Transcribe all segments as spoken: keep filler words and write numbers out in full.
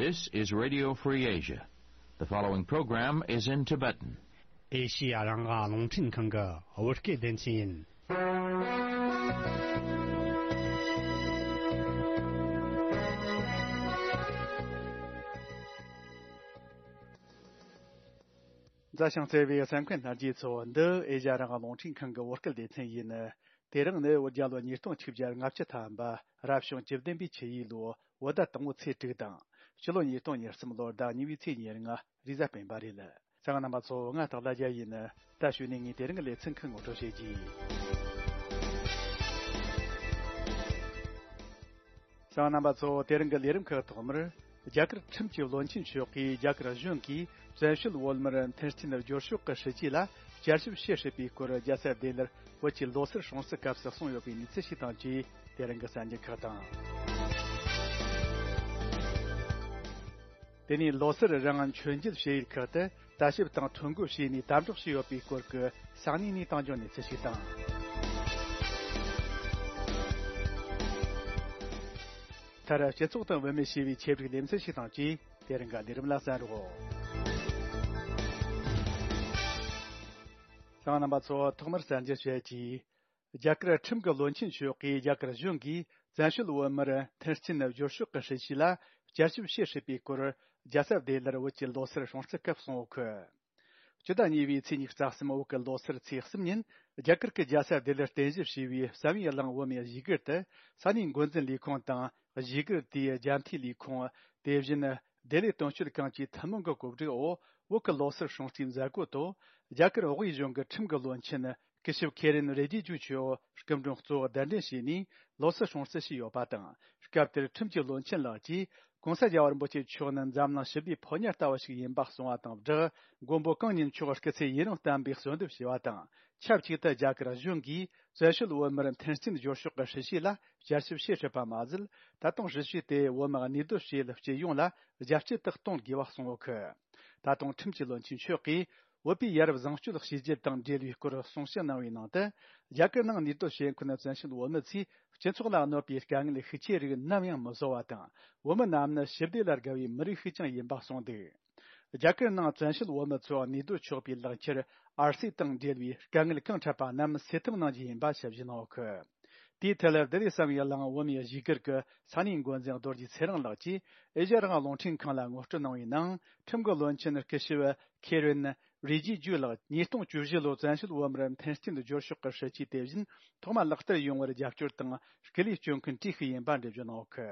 This is Radio Free Asia. The following program is in Tibetan. ཨེ་ཤི་ཡ་རང་དབང་རླུང་འཕྲིན་ཁང་གི་བོད་སྐད་སྡེ་ཚན་ཡིན། མཛའ་ཞིང་བརྩེ་བའི་གསན་མཁན་རྣམས་ཀྱིས་ཚོ་འདི་ཨེ་ཤ་ཡ་རང་དབང་རླུང་འཕྲིན་ཁང་གི་བོད་སྐད་སྡེ་ཚན་ཡིན། དེ་རིང་ནི་བོད་རྒྱལ་ལོ་ཉིས་སྟོང་ཆིག་བརྒྱ་ལྔ་བཅུ་ཐམ་པ་རབ་བྱུང་བཅུ་བདུན་པའི་ཆུ་ཡོས་ལོ་བོད་ཟླ་དང་པོ་ཚེས་དྲུག་དང་། སྤྱི་ལོ་ཉིས་སྟོང་ཉེར་གསུམ་ལོར་ཟླ་གཉིས་པའི་ཚེས་ཉེར་ལྔ་རེས་གཟའ་སྤེན་པ་རེད། གསན་མཁན་རྣམ་པ་ཚོ་ང་སྟག་ལྷ་རྒྱལ་ཡིན། ད་གཞུག་ནས་ངས་དེ་རིང་གི་ལེ་ཚན་ཁག་ངོ་སྤྲོད་བྱེད་ཀྱི། གསན་མཁན་རྣམ་པ་ཚོ་དེ་རིང་གི་ལས་རིམ་ཁག་ཐོག་མར། རྒྱ་གར་ཁྲིམས་ཀྱི་བློན་ཆེན་མཆོག་གིས་རྒྱ་གར་གཞུང་གིས་བཙན་བྱོལ་བོད་མིར་མཐུན་རྐྱེན་སྦྱོར་ཕྱོགས་ཀྱི་སྲིད་ཇུས་ལ་བསྐྱར་ཞིབ་བྱེད་སྲིད་པའི་སྐོར་རྒྱལ་ས་ལྡི་ལིར་བོད་ཀྱི་ལོ་སར་སྲུང་བརྩི་སྐབས་སུ་གསུངས་ཡོད་པའི་གནས་ཚུལ་ཞིག་དང་བཅས་དེ་རིང་གི་གསར་འགྱུར་ཁག་དང་། དེ་ནས་ལོ་སར་རིང་མཆོད་མཇལ་བྱེད་ཡུལ་ཁག་ཏུ་ལྟ་ཞིབ་དང་ཐོ་འགོད་བྱས་ནས་དམ་དྲག་བྱས་ཡོད་པའི་སྐོར་གྱི་ས་གནས་ནས་བཏང་རྒྱུ་གནས་ཚུལ་ཞིག་དང་། མཐར་སྤྱི་ཚོགས་དང་བུད་མེད་ཞེས་པའི་ཆེད་བསྒྲིགས་ལེ་ཚན་ཞིག་དང་བཅས་དེ་རིང་གི་ལས་རིམ་ལ་གསན་རོགས། གསན་མཁན་རྣམ་པ་ཚོ་ཐོག་མར་གསར་འགྱུར་བཤད་ཀྱིས། རྒྱ་གར་ཁྲིམས་ཀྱི་བློན་ཆེན་མཆོག་གིས་རྒྱ་གར་གཞུང་གིས་བཙན་བྱོལ་བོད་མིར་མཐུན་རྐྱེན་སྦྱོར་ཕྱོགས་ཀྱི་སྲིད་ཇུས་ལ་བསྐྱར་ཞིབ་བྱེད་སྲིད་པའི་སྐོར་རྒྱལ་ས་ལྡི་ལིར་བོད་ཀྱི་ལོ་སར་སྲུང་བརྩི་སྐབས་གསུངས་ཡོད་གི། སྤྱི་ཟླ་གཉིས་པའི་ཚེས་ཉི་ཤུ་རྩ་གསུམ་བོད་ཀྱི་ལོ་སར་ཚེས་གསུམ་ཉིན་རྒྱ་གར་གྱི་རྒྱལ་ས་ལྡི་ལིར་རྟེན་གཞི་བྱས་པའི་བསམ་ཡས་གླིང་བོད་མིའི་གཞིས་སྒར་དུ་ས་གནས་འགོ་འཛིན་ལས་ཁུངས་དང་གཞིས་སྒར་དེའི་རྒྱ་མཐའི་ལས་ཁུངས། དེ་བཞིན་ལྡི་ལི་དོན་གཅོད་ཁང་བཅས་ཐུན་མོང་གི་གོ་སྒྲིག་འོག་བོད་ཀྱི་ལོ་སར་སྲུང་བརྩིའི་མཛད་སྒོ་ཐོག་རྒྱ་གར་བོད་གཞུང་གི་ཁྲིམས་ཀྱི་བློན་ཆེན་སྐུ་ཞབས་ཁེ་རེན་རེ་ཇི་ཇུ་མཆོག་སྐུ་མགྲོན་གཙོ་བོ་གདན་འདྲེན་བྱས་ནས་ལོ་སར་སྲུང་བརྩི་བྱས་ཡོད་པ་དང་། སྐབས་དེར་ཁྲིམས་ཀྱི་བློན་ཆེན་ལགས་ཀྱིས་༸གོང་ས་རྒྱལ་བ་རིན་པོ་ཆེ་མཆོག་ནི་འཛམ་གླིང་ཞི་བདེའི་ཕོ་ཉ་ལྟ་བུ་ཞིག་ཡིན་པ་གསུངས་པ་དང་སྦྲགས། མགོན་པོ་གང་ཉིད་མཆོག་སྐུ་ཚེ་ཡུན་རིང་བརྟན་པའི་གསོལ་འདེབས་ཞུས་པ་དང་། ཆབས་ཅིག་ཏུ་རྒྱ་གར་གཞུང་གིས་བཙན་བྱོལ་བོད་མིར་མཐུན་རྐྱེན་སྦྱོར་ཕྱོགས་ཀྱི་སྲིད་ཇུས་ལ་བསྐྱར་ཞིབ་བྱེད་སྲིད་པ་མ་ཟད། ད་དུང་སྲིད་ཇུས་དེ་བོད་མི་གནས་སྡོད་བྱེད་ཡུལ་སྤྱི་ཡོངས་ལ་རྒྱ་སྐྱེད་དུ་གཏོང་དགོས་པ་གསུངས་ཡོད་གི། ད་དུང་ཁྲིམས་ཀྱི་བློན་ཆེན་མཆོག་གིས་བོད་པའི་ཡ་རབས་བཟང་སྤྱོད་གཤིས་རྒྱུད་དང་འབྲེལ་བའི་སྐོར་གསུང་བཤད་གནང་བའི་ནང་དུ། རྒྱ་གར་ནང་གནས་སྡོད་བྱེད་མཁན་བཙན་བྱོལ་བོད་མི་ཚོས་སྤྱི་ཚོགས་ལ་གནོད་པའི་དཀའ་ངལ་ཤུགས་ཆེ་རིགས་ནམ་ཡང་མི་བཟོ་བ་དང་། བོད་མི་རྣམས་ནི་ཞི་བདེ་ལ་དགའ་བའི་མི་རིགས་ཤིག་ཀྱང་ཡིན་པ་གསུངས་འདུག། རྒྱ་གར་ནང་བཙན་བྱོལ་བོད་མི་ཚོ་གནས་སྡོད་ཆོག་པའི་ལག་ཁྱེར་ཨར་སི་དང་འབྲེལ་བའི་དཀའ་ངལ་གང་འཕྲད་པ་རྣམས་སེལ་ཐབས་གནང་རྒྱུ་ཡིན་པ་ཞིབ་བཤེར་གནང་ཡོད་གི། དེའི་ཐད་ལྡི་ལི་བསམ་ཡས་གླིང་བོད་མིའི་གཞིས་སྒར་གྱི་ས་གནས་འགོ་འཛིན་རྡོ་རྗེ་ཚེ་རིང་ལགས་ཀྱིས་ཨེ་ཤ་ཡ་རང་དབང་རླུང་འཕྲིན་ཁང་ལ་ངོ་སྤྲོད་གནང་བའི་ནང་། ཁྲིམས་ཀྱི་བློན་ཆེན་སྐུ་ཞབས་ཁེ་རེན་རི་ཇི་ཇུ་ལགས་ཉིས་སྟོང་བཅུ་བཞི་ལོའི་བཙན་བྱོལ་བོད་མིར་མཐུན་རྐྱེན་སྦྱོར་ཕྱོགས་ཀྱི་སྲིད་ཇུས་དེ་བཞིན་ཐོག་མ་ལག་བསྟར་ཡོང་བར་རྒྱབ་སྐྱོར་དང་སྐུ་ལས་བསྐྱོན་མཁན་གྲས་ཤིག་ཡིན་པ་འགྲེལ་བརྗོད་གནང་ཡོད་གི།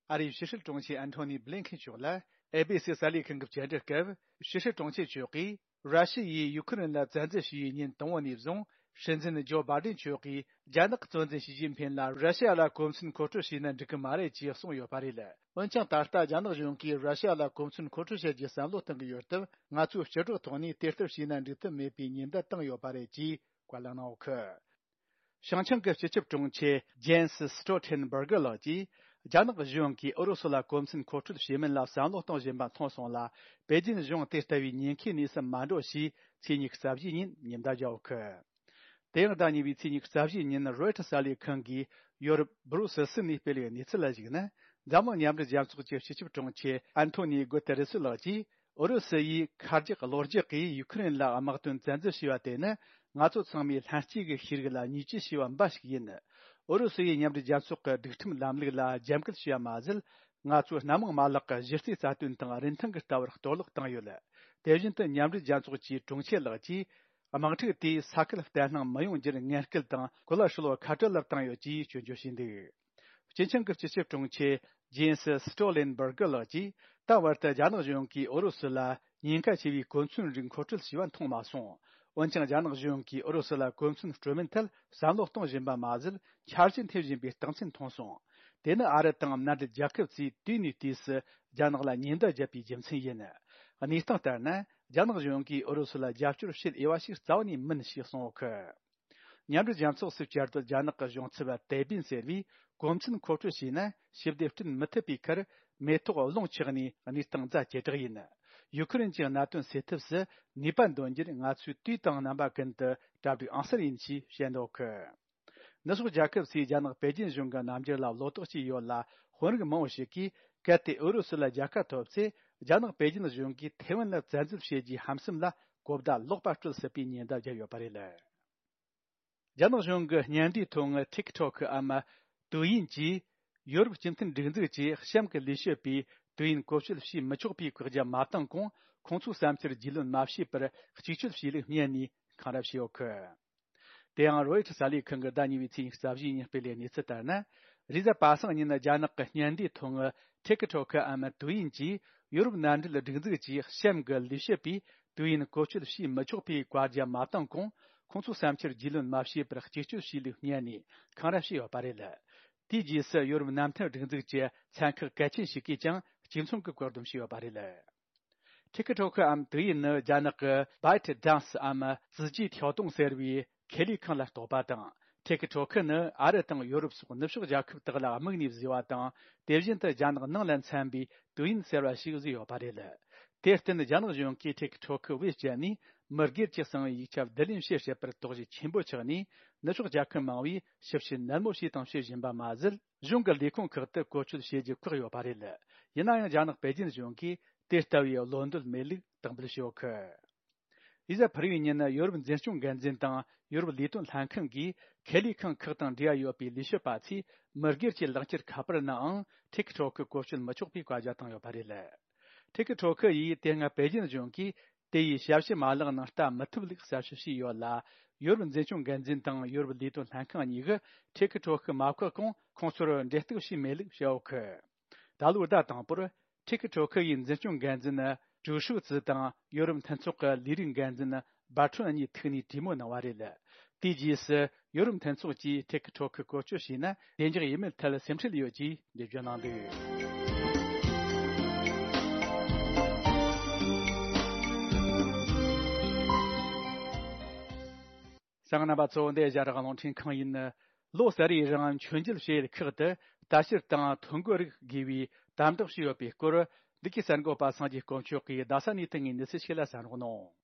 ཨ་རིའི་ཕྱི་སྲིད་དྲུང་ཆེ་ཨན་ཐོ་ནི་བྷི་ལིན་ཁེན་མཆོག་ལ་ཨེ་བྷི་སི་གསར་ལས་ཁང་གི་བཅར་འདྲི་སྐབས། ཕྱི་སྲིད་དྲུང་ཆེ་མཆོག་གིས་ར་ཤི་ཡས་ཡུ་ཁུ་རེན་ལ་བཙན་འཛུལ་བྱས་པའི་ཉིན་དང་པོ་ནས་བཟུང་སྲིད་འཛིན་ཇོ་བྷ་ཌེན་མཆོག་གིས་རྒྱ་ནག་གཙོ་འཛིན་ཞི་ཅིན་ཕིན་ལ་ར་ཤི་ཡ་ལ་གོ་མཚོན་མཁོ་སྤྲོད་བྱས་ན་འགྲིག་གི་མ་རེད་ཅེས་གསུངས་ཡོད་པ་རེད། འོན་ཀྱང་ད་ལྟ་རྒྱ་ནག་གཞུང་གིས་ར་ཤི་ཡ་ལ་གོ་མཚོན་མཁོ་སྤྲོད་བྱ་རྒྱུའི་བསམ་བློ་གཏོང་གི་ཡོད་སྟབས། ང་ཚོས་ཕྱི་དྲགས་ཐོག་ནས་དེ་ལྟར་བྱས་ན་འགྲིག་ཐབས་མེད་པའི་ཉེན་བརྡ་བཏང་ཡོད་པ་རེད་ཅེས་བཀའ་ལན་གནང་ཡོད་གི། བྱང་ཆིངས་ཀྱི་སྤྱི་ཁྱབ་དྲུང་ཆེ་ཇེན་སི་སི་ཊོལ་ཊེན་བྷར་གྷི་ལགས་ཀྱིས། རྒྱ་ནག་གཞུང་གིས་ཨུ་རུ་སུ་ལ་གོ་མཚོན་མཁོ་སྤྲོད་བྱེད་མིན་ལ་བསམ་བློ་གཏོང་བཞིན་པ་མཐོང་སོང་ལ། པེ་ཅིན་གཞུང་དེ་ལྟ་བུའི་ཉེན་ཁའི་གནས་སུ་མ་འགྲོ་ཞེས་ཚེས་ཉི་ཤུ་རྩ་བཞིའི་ཉིན་ཉེན་བརྡ་བརྒྱབ་ཡོད་གི། དེ་ཡང་ཟླ་གཉིས་པའི་ཚེས་ཉི་ཤུ་རྩ་བཞིའི་ཉིན་རོའི་ཊར་གསར་ལས་ཁང་གིས་ཡོ་རོབ་སྦུ་རུ་སེལ་སི་ནས་སྤེལ་བའི་གནས་ཚུལ་ལ་གཞིགས་ན། འཛམ་གླིང་མཉམ་འབྲེལ་རྒྱལ་ཚོགས་ཀྱི་སྤྱི་ཁྱབ་དྲུང་ཆེ་ཨན་ཐོ་ནི་གུ་ཏེ་རེ་སི་ལགས་ཀྱིས། ཨུ་རུ་སུ་ཡིས་ཁ་རྒྱག་གློ་རྒྱག་གིས་ཡུ་ཁུ་རེན་ལ་དམག་དོན་བཙན་འཛུལ་བྱས་པ་དེ་ནི། ང་ཚོ་ཚང་མས་ལྷན་སྐྱེས་ཀྱི་ཤེས་རིག་ལ་བརྙས་བཅོས་བྱས་པ་འབའ་ཞིག་ཡིན། ཨུ་རུ་སུ་ཡིས་མཉམ་འབྲེལ་རྒྱལ་ཚོགས་ཀྱི་སྒྲིག་ཁྲིམས་ལམ་ལུགས་ལ་རྒྱབ་འགལ་བྱས་པ་མ་ཟད། ང་ཚོའི་སྣ་མང་མ་ལག་གི་གཞི་རྩའི་རྩ་དོན་དང་རིན་ཐང་གི་ལྟ་བར་གཏོར་བརླག་བཏང་ཡོད། དེ་བཞིན་དུ་མཉམ་འབྲེལ་རྒྱལ་ཚོགས་ཀྱི་དྲུང་ཆེ་ལགས་ཀྱིས། དམག་འཁྲུག་དེས་ས་ཁུལ་བརྟན་ལྷིང་མི་ཡོང་རྒྱུར་ངན་སྐུལ་དང་གོ་ལ་ཧྲིལ་བོ་ཁ་བྲལ་ལ་བཏང་ཡོད་ཅེས་སྐྱོན་བརྗོད་བྱས་འདུག། སྤྱི་ཁྱབ་ཀྱི་སྤྱི་ཁྱབ་དྲུང་ཆེ་ཇེན་སི་སི་ཊོ་ལེན་བྷར་གྷི་ལགས་ཀྱིས། ད་བར་དུ་རྒྱ་ནག་གཞུང་གིས་ཨུ་རུ་སུ་ལ་ཉེན་ཁ་ཆེ་བའི་གོ་མཚོན་རིགས་མཁོ་སྤྲོད་བྱས་པ་མཐོང་མ་སོང་། འོན་ཀྱང་། རྒྱ་ནག་གཞུང་གིས་ཨུ་རུ་སུ་ལ་གོ་མཚོན་སྤྲོད་མིན་ཐད་བསམ་བློ་གཏོང་བཞིན་པ་མ་ཟད། འཆར་གཞི་འཐེན་བཞིན་པའི་རྟགས་མཚན་མཐོང་སོང་། དེ་ནི་ཨ་རི་དང་མནའ་འབྲེལ་རྒྱལ་ཁབ་ཚོས་དུས་ནས་དུས་སུ་རྒྱ་ནག་ལ་ཉེན་བརྡ་བརྒྱབ་པའི་རྒྱུ་མཚན་ཡིན། གནས་སྟངས་ལྟར་ན། རྒྱ་ནག་གཞུང་གིས་ཨུ་རུ་སུ་ལ་རྒྱབ་སྐྱོར་བྱེད་འོས་པ་ཞིག་རྩ་བ་ནས་མིན་ཞེས་གསུངས་ཡོད་གི། མཉམ་འབྲེལ་རྒྱལ་ཚོགས་སུ་བཅར་དུ་རྒྱ་ནག་གི་གཞུང་ཚབ་ཏེ་པིན་ཟེར་བས། གོ་མཚོན་མཁོ་སྤྲོད་བྱས་ན་ཞི་བདེ་བསྐྲུན་མི་ཐུབ་པའི་ཁར། མེ་ཏོག་རླུང་ཆགས་ནས་གནས་སྟངས་ཛ་ཇེ་དྲག་ཡིན། ཡུ་ཁུ་རེན་གྱི་མནའ་དོན་སེལ་ཐབས་སུ་ནུས་པ་འདོན་རྒྱུར་ང་ཚོས་དུས་དང་རྣམ་པ་ཀུན་ཏུ་གྲ་སྒྲིག་ཨང་གསར་ཡིན་ཞེས་བཤད་འདུག་གི། ནུབ་ཕྱོགས་རྒྱལ་ཁབ་ཚོས་རྒྱ་ནག་པེ་ཅིན་གཞུང་གི་རྣམ་འགྱུར་ལ་བློ་དོགས་སྐྱེས་ཡོད་ལ། དཔོན་རིགས་མང་བོ་ཞིག་གིས་ གལ་ཏེ་ཨུ་རུ་སུ་ལ་རྒྱལ་ཁ་ཐོབ་ཚེ། རྒྱ་ནག་པེ་ཅིན་གཞུང་གིས་ཐེ་ཝན་ལ་བཙན་འཛུལ་བྱེད་རྒྱུའི་ཧམ་སེམས་ལ་གོ་བརྡ་ལོག་པ་སྤྲོད་སྲིད་པའི་ཉེན་བརྡ་བརྒྱབ་ཡོད་པ་རེད། རྒྱ་ནག་གཞུང་གི་བརྙན་འདྲའི་ཐོག་ངི་ཐིག་ཐོག་གི་ཨམ་ཏུའུ་ཡིན་གྱིས། ཡོ་རོབ་སྤྱི་མཐུན་སྒྲིག་འཛུགས་ཀྱིས་གཤམ་གྱི་ལས་བྱེད་པས་ཏུའུ་ཡིན་བཀོལ་སྤྱོད་བྱེད་མི་ཆོག་པའི་བཀག་རྒྱ་མ་བཏང་གོང་། ཁོང་ཚོའི་བསམ་འཆར་རྒྱུས་ལོན་མ་བྱས་པར་གཅིག་སྤྱོད་བྱས་ལུགས་སྨྲས་ནས་འཁང་ར་བྱས་ཡོད་གི། དེ་ཡང་རོའི་ཊར་གསར་ལས་ཁང་གིས་ཟླ་གཉིས་པའི་ཚེས་ཉི་ཤུ་རྩ་བཞིའི་ཉིན་སྤེལ་བའི་གནས་ཚུལ་ལྟར་ན། རེས་གཟའ་པ་སངས་ཉིན་རྒྱ་ནག་གི་བརྙན་འདྲའི་ཐོག་ངི་ཐེ་ཁི་ཁྲོ་ཁི་ཨམ་ཏུའུ་ཡིན་གྱིས། ཡོ་རོབ་མནའ་འབྲེལ་སྒྲིག་འཛུགས་ཀྱིས་གཤམ་གྱི་ལས་བྱེད་པས་ཏུའུ་ཡིན་བཀོལ་སྤྱོད་བྱེད་མི་ཆོག་པའི་བཀའ་རྒྱ་མ་བཏང་གོང་། ཁོང་ཚོའི་བསམ་འཆར་རྒྱུས་ལོན་མ་བྱས་པར་གཅིག་སྤྱོད་བྱས་ལུགས་སྨྲས་ནས་འཁང་ར་བྱས་ཡོད་པ་རེད། དེའི་རྗེས་སུ་ཡོ་རོབ་མནའ་མཐུན་སྒྲིག་འཛུགས་ཀྱི་ཚན་ཁག་གལ་ཆེན་ཞིག་གིས་ཀྱང་གཅིག་མཚུངས་ཀྱི་བཀག་སྡོམ་བྱས་ཡོད་པ་རེད། ཐེ་ཁི་ཁྲོ་ཁི་ཨམ་ཏུའུ་ཡིན་ནི་རྒྱ་ནག་གི་ByteDance ཨམ་རྩིས་རྒྱུའི་ཐོ་གཏོང་ཟེར་བའི་ཁེ་ལས་ཁང་ལ་གཏོགས་པ་དང་། ཐེ་ཁི་ཁྲོ་ཁི་ནི་ཨ་རི་དང་ཡོ་རོབ་སོགས་ནུབ་ཕྱོགས་རྒྱལ་ཁབ་དག་ལ་དམིགས་ནས་བཟོས་པ་དང་། དེ་བཞིན་དུ་རྒྱ་ནག་ནང་ལ་འཚམ་པའི་ཏུའུ་ཡིན་ཟེར་བ་ཞིག་བཟོས་ཡོད་པ་རེད། དེར་བརྟེན་རྒྱ་ནག་གཞུང་གིས་ཐེ་ཁི་ཁྲོ་ཁི་བེད་སྤྱད་ནས་མི་སྒེར་གྱི་གསང་བའི་ཡིག་ཆ་བསྡུ་ལེན་བྱེད་སྲིད་པར་དོགས་གཞི་ཆེན་པོ་ཆགས་ནས། ནུབ་ཕྱོགས་རྒྱལ་ཁབ་མང་བོས་ཞིབ་བཤེར་ནན་མོ་བྱས་དང་བྱེད་བཞིན་པ་མ་ཟད། གཞུང་གི་ལས་ཁུངས་ཁག་ཏུ་བཀོལ་སྤྱོད་བྱེད་རྒྱུ་བཀག་ཡོད་པ་རེད། ཡིན་ན་ཡང་རྒྱ་ནག་པེ་ཅིན་གཞུང་གིས་དེ་ལྟ་བུའི་བློ་འདོད་མེད་ལུགས་དག་འབུལ་བྱས་ཡོད་གི། རེས་གཟའ་ཕུར་བུའི་ཉིན་ཡོ་རོབ་འཛིན་སྐྱོང་འགན་འཛིན་དང་ཡོ་རོབ་ལས་དོན་ལྷན་ཁང་གིས་ཁེ་ལས་ཁང་ཁག་དང་འབྲེལ་བ་ཡོད་པའི་ལས་བྱེད་པ་ཚོས་མི་སྒེར་གྱི་ལག་འཁྱེར་ཁ་པར་ནའང་ཐེ་ཁི་ཁྲོ་ཁི་བཀོལ་སྤྱོད་མི་ཆོག་པའི་བཀའ་རྒྱ་བཏང་ཡོད་པ་རེད། ཐེ་ཁི་ཁྲོ་ཁི་ཡིས་དེ་སྔ་པེ་ཅིན་གཞུང་གིས་དེ་ཡི་ཞབས་ཞུ་མ་ལག་ནང་ལྟ་མི་ཐུབ་ལུགས་གསལ་བཤད་བྱས་ཡོད་ལ། ཡོ་རོབ་འཛིན་སྐྱོང་འགན་འཛིན་དང་ཡོ་རོབ་ལས་དོན་ལྷན་ཁང་གཉིས་ཀྱིས་ཐེ་ཁི་ཁྲོ་ཁི་མ་བཀག་གོང་ཁོང་ཚོར་འབྲེལ་གཏུག་བྱས་མེད་ལུགས་བཤད་ཡོད་གི། ད་ལོའི་ཟླ་དང་པོར་ཐེ་ཁི་ཁྲོ་ཁི་ཡི་འཛིན་སྐྱོང་འགན་འཛིན་ཀྲུའུ་ཧྲུའུ་ཙི་དང་ཡོ་རོབ་མཐུན་ཚོགས་ཀྱི་ལས་རིགས་འགན་འཛིན་བར་ཁྲོན་གཉིས་ཐུག་ནས་གྲོས་མོལ་གནང་བ་རེད། དེའི་རྗེས་སུ་ཡོ་རོབ་མཐུན་ཚོགས་ཀྱིས་ཐེ་ཁི་ཁྲོ་ཁི་བཀོལ་སྤྱོད་བྱས་ན་བདེ་འཇགས་ཡིན་མིན་ཐད་སེམས་ཁྲལ་ཡོད་ཅེས་འགྲེལ་བརྗོད་གནང་འདུག་གསན་མཁན་རྣམ་པ་ཚོ། འདི་ཨེ་ཤ་ཡ་རང་དབང་རླུང་འཕྲིན་ཁང་ཡིན། ལོ་གསར་བའི་རིང་མཆོད་མཇལ་བྱེད་ཡུལ་ཁག་ཏུ་ལྟ་བཤལ་དང་ཐོ་འགོད་རིགས་དགོས་པའི་དམ་དྲག་བྱས་ཡོད་པའི་སྐོར། འདི་གའི་གསར་འགོད་པ་སངས་རྒྱས་དཀོན་མཆོག་གིས་རྡ་ས་ནས་ཐོན་པའི་གནས་ཚུལ་ཞིག་ལ་གསན་རོགས་གནང་།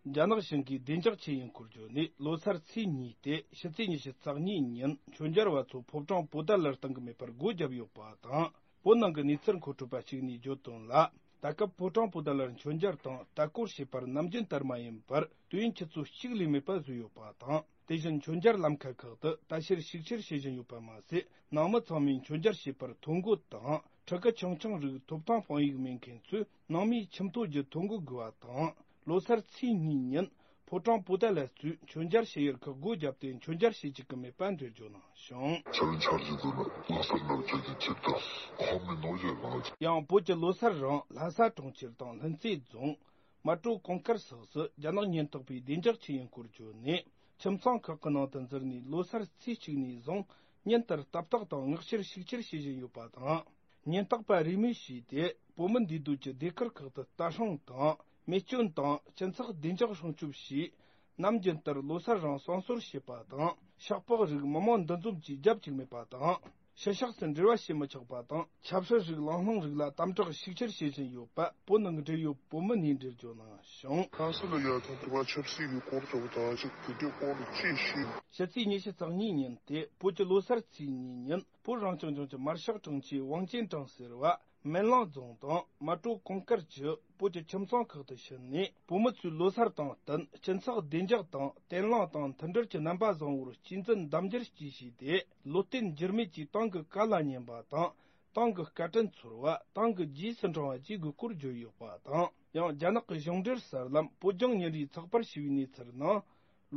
རྒྱ་ནག་གཞུང་གིས་བདེ་འཇགས་ཆེད་ཡིན་སྐོར་བརྗོད་ནས། ལོ་སར་ཚེས་གཉིས་ཏེ་ཕྱི་ཚེས་ཉི་ཤུ་རྩ་གཉིས་ཉིན་མཆོད་མཇལ་བ་ཚོ་ཕོ་བྲང་པོ་ཏཱ་ལར་གཏོང་གི་མེད་པར་སྒོ་བརྒྱབ་ཡོད་པ་དང་། བོད་ནང་གི་གནས་ཚུལ་མཁོ་སྤྲོད་པ་གཅིག་ནས་བརྗོད་དོན་ལ། ད་སྐབས་ཕོ་བྲང་པོ་ཏཱ་ལར་མཆོད་མཇལ་དང་ལྟ་སྐོར་བྱེད་པར་ནམ་རྒྱུན་ལྟར་མ་ཡིན་པར་དུས་ཡུན་ཆུ་ཚོད་གཅིག་ལས་མེད་པ་བཟོས་ཡོད་པ་དང་། དེ་བཞིན་མཆོད་མཇལ་ལམ་ཁ་ཁག་ཏུ་ལྟ་བཤལ་ཞིབ་བཤེར་བྱེད་བཞིན་ཡོད་པ་མ་ཟད། ནང་མི་ཚང་མས་མཆོད་མཇལ་བྱེད་པར་ཐོ་འགོད་དང་། ཕྲུ་གུ་ཆུང་ཆུང་རིགས་ཐོབ་ཐང་དཔང་ཡིག་མེད་མཁན་ཚོས་ནང་མིའི་ཁྱིམ་ཐོ་བརྒྱུད་ཐོ་འགོད་དགོས་པ་དང་། ལོ་སར་ཚེས་གཉིས་ཉིན་ཕོ་བྲང་པོ་ཏཱ་ལ་གཙོས་མཆོད་མཇལ་བྱེད་ཡུལ་ཁག་སྒོ་བརྒྱབ་སྟེ་མཆོད་མཇལ་བྱེད་བཅུག་གི་མེད་པ་འགྲེལ་བརྗོད་གནང་ཞིང་། ཆ་ལུན་ཆར་གྱི་དུ་ནི་ལོ་སར་ནག་ཆུ་གྱི་ཆིབས་དང་ཁོང་མི་ནོ་ཡོད་གནང་། ཡང་བོད་ཀྱི་ལོ་སར་རིང་ལྷ་ས་གྲོང་ཁྱེར་དང་ལྷུན་རྩེ་རྫོང་། མལ་གྲོ་གུང་དཀར་སོགས་སུ་རྒྱ་ནག་ཉེན་རྟོག་པས་བདེ་འཇགས་ཆེད་ཡིན་སྐོར་བརྗོད་ནས། ཁྱིམ་ཚང་ཁག་གི་ནང་དུ་འཛུལ་ནས་ལོ་སར་ཚེས་གཅིག་ནས་བཟུང་ཉིན་ལྟར་ལྟ་བརྟག་དང་མངགས་བཤེར་ཞིབ་བཤེར་བྱེད་བཞིན་ཡོད་པ་དང་། ཉེན་རྟོག་པ་རེས་མོས་བྱས་ཏེ། བོད་མི་འདུས་སྡོད་ཀྱི་སྡེ་ཁུལ་ཁག་ཏུ་ལྟ་སྲུང་དང་། རྨས་སྐྱོན་དང་སྤྱི་ཚོགས་བདེ་འཇགས་སྲུང་སྐྱོབ་བྱས། ནམ་རྒྱུན་ལྟར་ལོ་སར་རིང་གསང་གསོལ་བྱེད་པ་དང་། ཤག་པགས་རིགས་མི་མང་འདུ་འཛོམས་ཀྱིས་རྒྱབ་བཅུག་མེད་པ་དང་། ཕྱི་ཕྱོགས་སུ་འབྲེལ་བ་བྱེད་མི་ཆོག་པ་དང་། ཆབ་སྲིད་རིགས་ལམ་ལྷོང་རིགས་ལ་དམ་དྲག་ཤུགས་ཆེར་བྱེད་བཞིན་ཡོད་པ་བོད་ནང་གི་འབྲེལ་ཡོད་བོད་མི་ནས་འགྲེལ་བརྗོད་གནང་ཞིང་། ཁ་སང་ལ་ཡ་ཐང་དུ་བ་ཆབ་སྲིད་ཀྱི་སྐོར་ཐོག་ད་ཅིག་དེ་གའི་སྐོར་ལ་ཅི་ཤེས། ཕྱི་ཚེས་ཉི་ཤུ་རྩ་གཉིས་ཉིན་ཏེ་བོད་ཀྱི་ལོ་སར་ཚེས་གཉིས་ཉིན་བོད་རང་སྐྱོང་ལྗོངས་ཀྱི་མར་ཤག་དྲུང་ཆེ་ཝང་ཅན་ཀྲང་ཟེར་བ། མན་ལང་རྫོང་དང་མལ་གྲོ་གུང་དཀར་གྱི་བོད་ཀྱི་ཁྱིམ་ཚང་ཁག་ཏུ་ཕྱིན་ནས། བོད་མི་ཚོས་ལོ་སར་དང་བསྟུན་སྤྱི་ཚོགས་བདེ་འཇགས་དང་བརྟན་ལྷིང་དང་མཐུན་སྒྲིལ་གྱི་རྣམ་པ་བཟང་བོར་གཅེས་འཛིན་གདམ་འཇལ་གྱིས་བྱས་ཏེ། ལོ་རྟེན་འགྱུར་མེད་ཀྱི་ཏང་གི་བཀའ་ལ་ཉན་པ་དང་། ཏང་གི་བཀའ་དྲིན་ཚོར་བ། ཏང་གི་རྗེས་སུ་འབྲང་བ་བཅས་དགོས་སྐོར་བརྗོད་ཡོད་པ་དང་། ཡང་རྒྱ་ནག་གི་གཞུང་འབྲེལ་གསར་ལམ་བོད་ལྗོངས་ཉིན་རེའི་ཚགས་པར་ཞེས་པའི་གནས་ཚུལ་ནང་།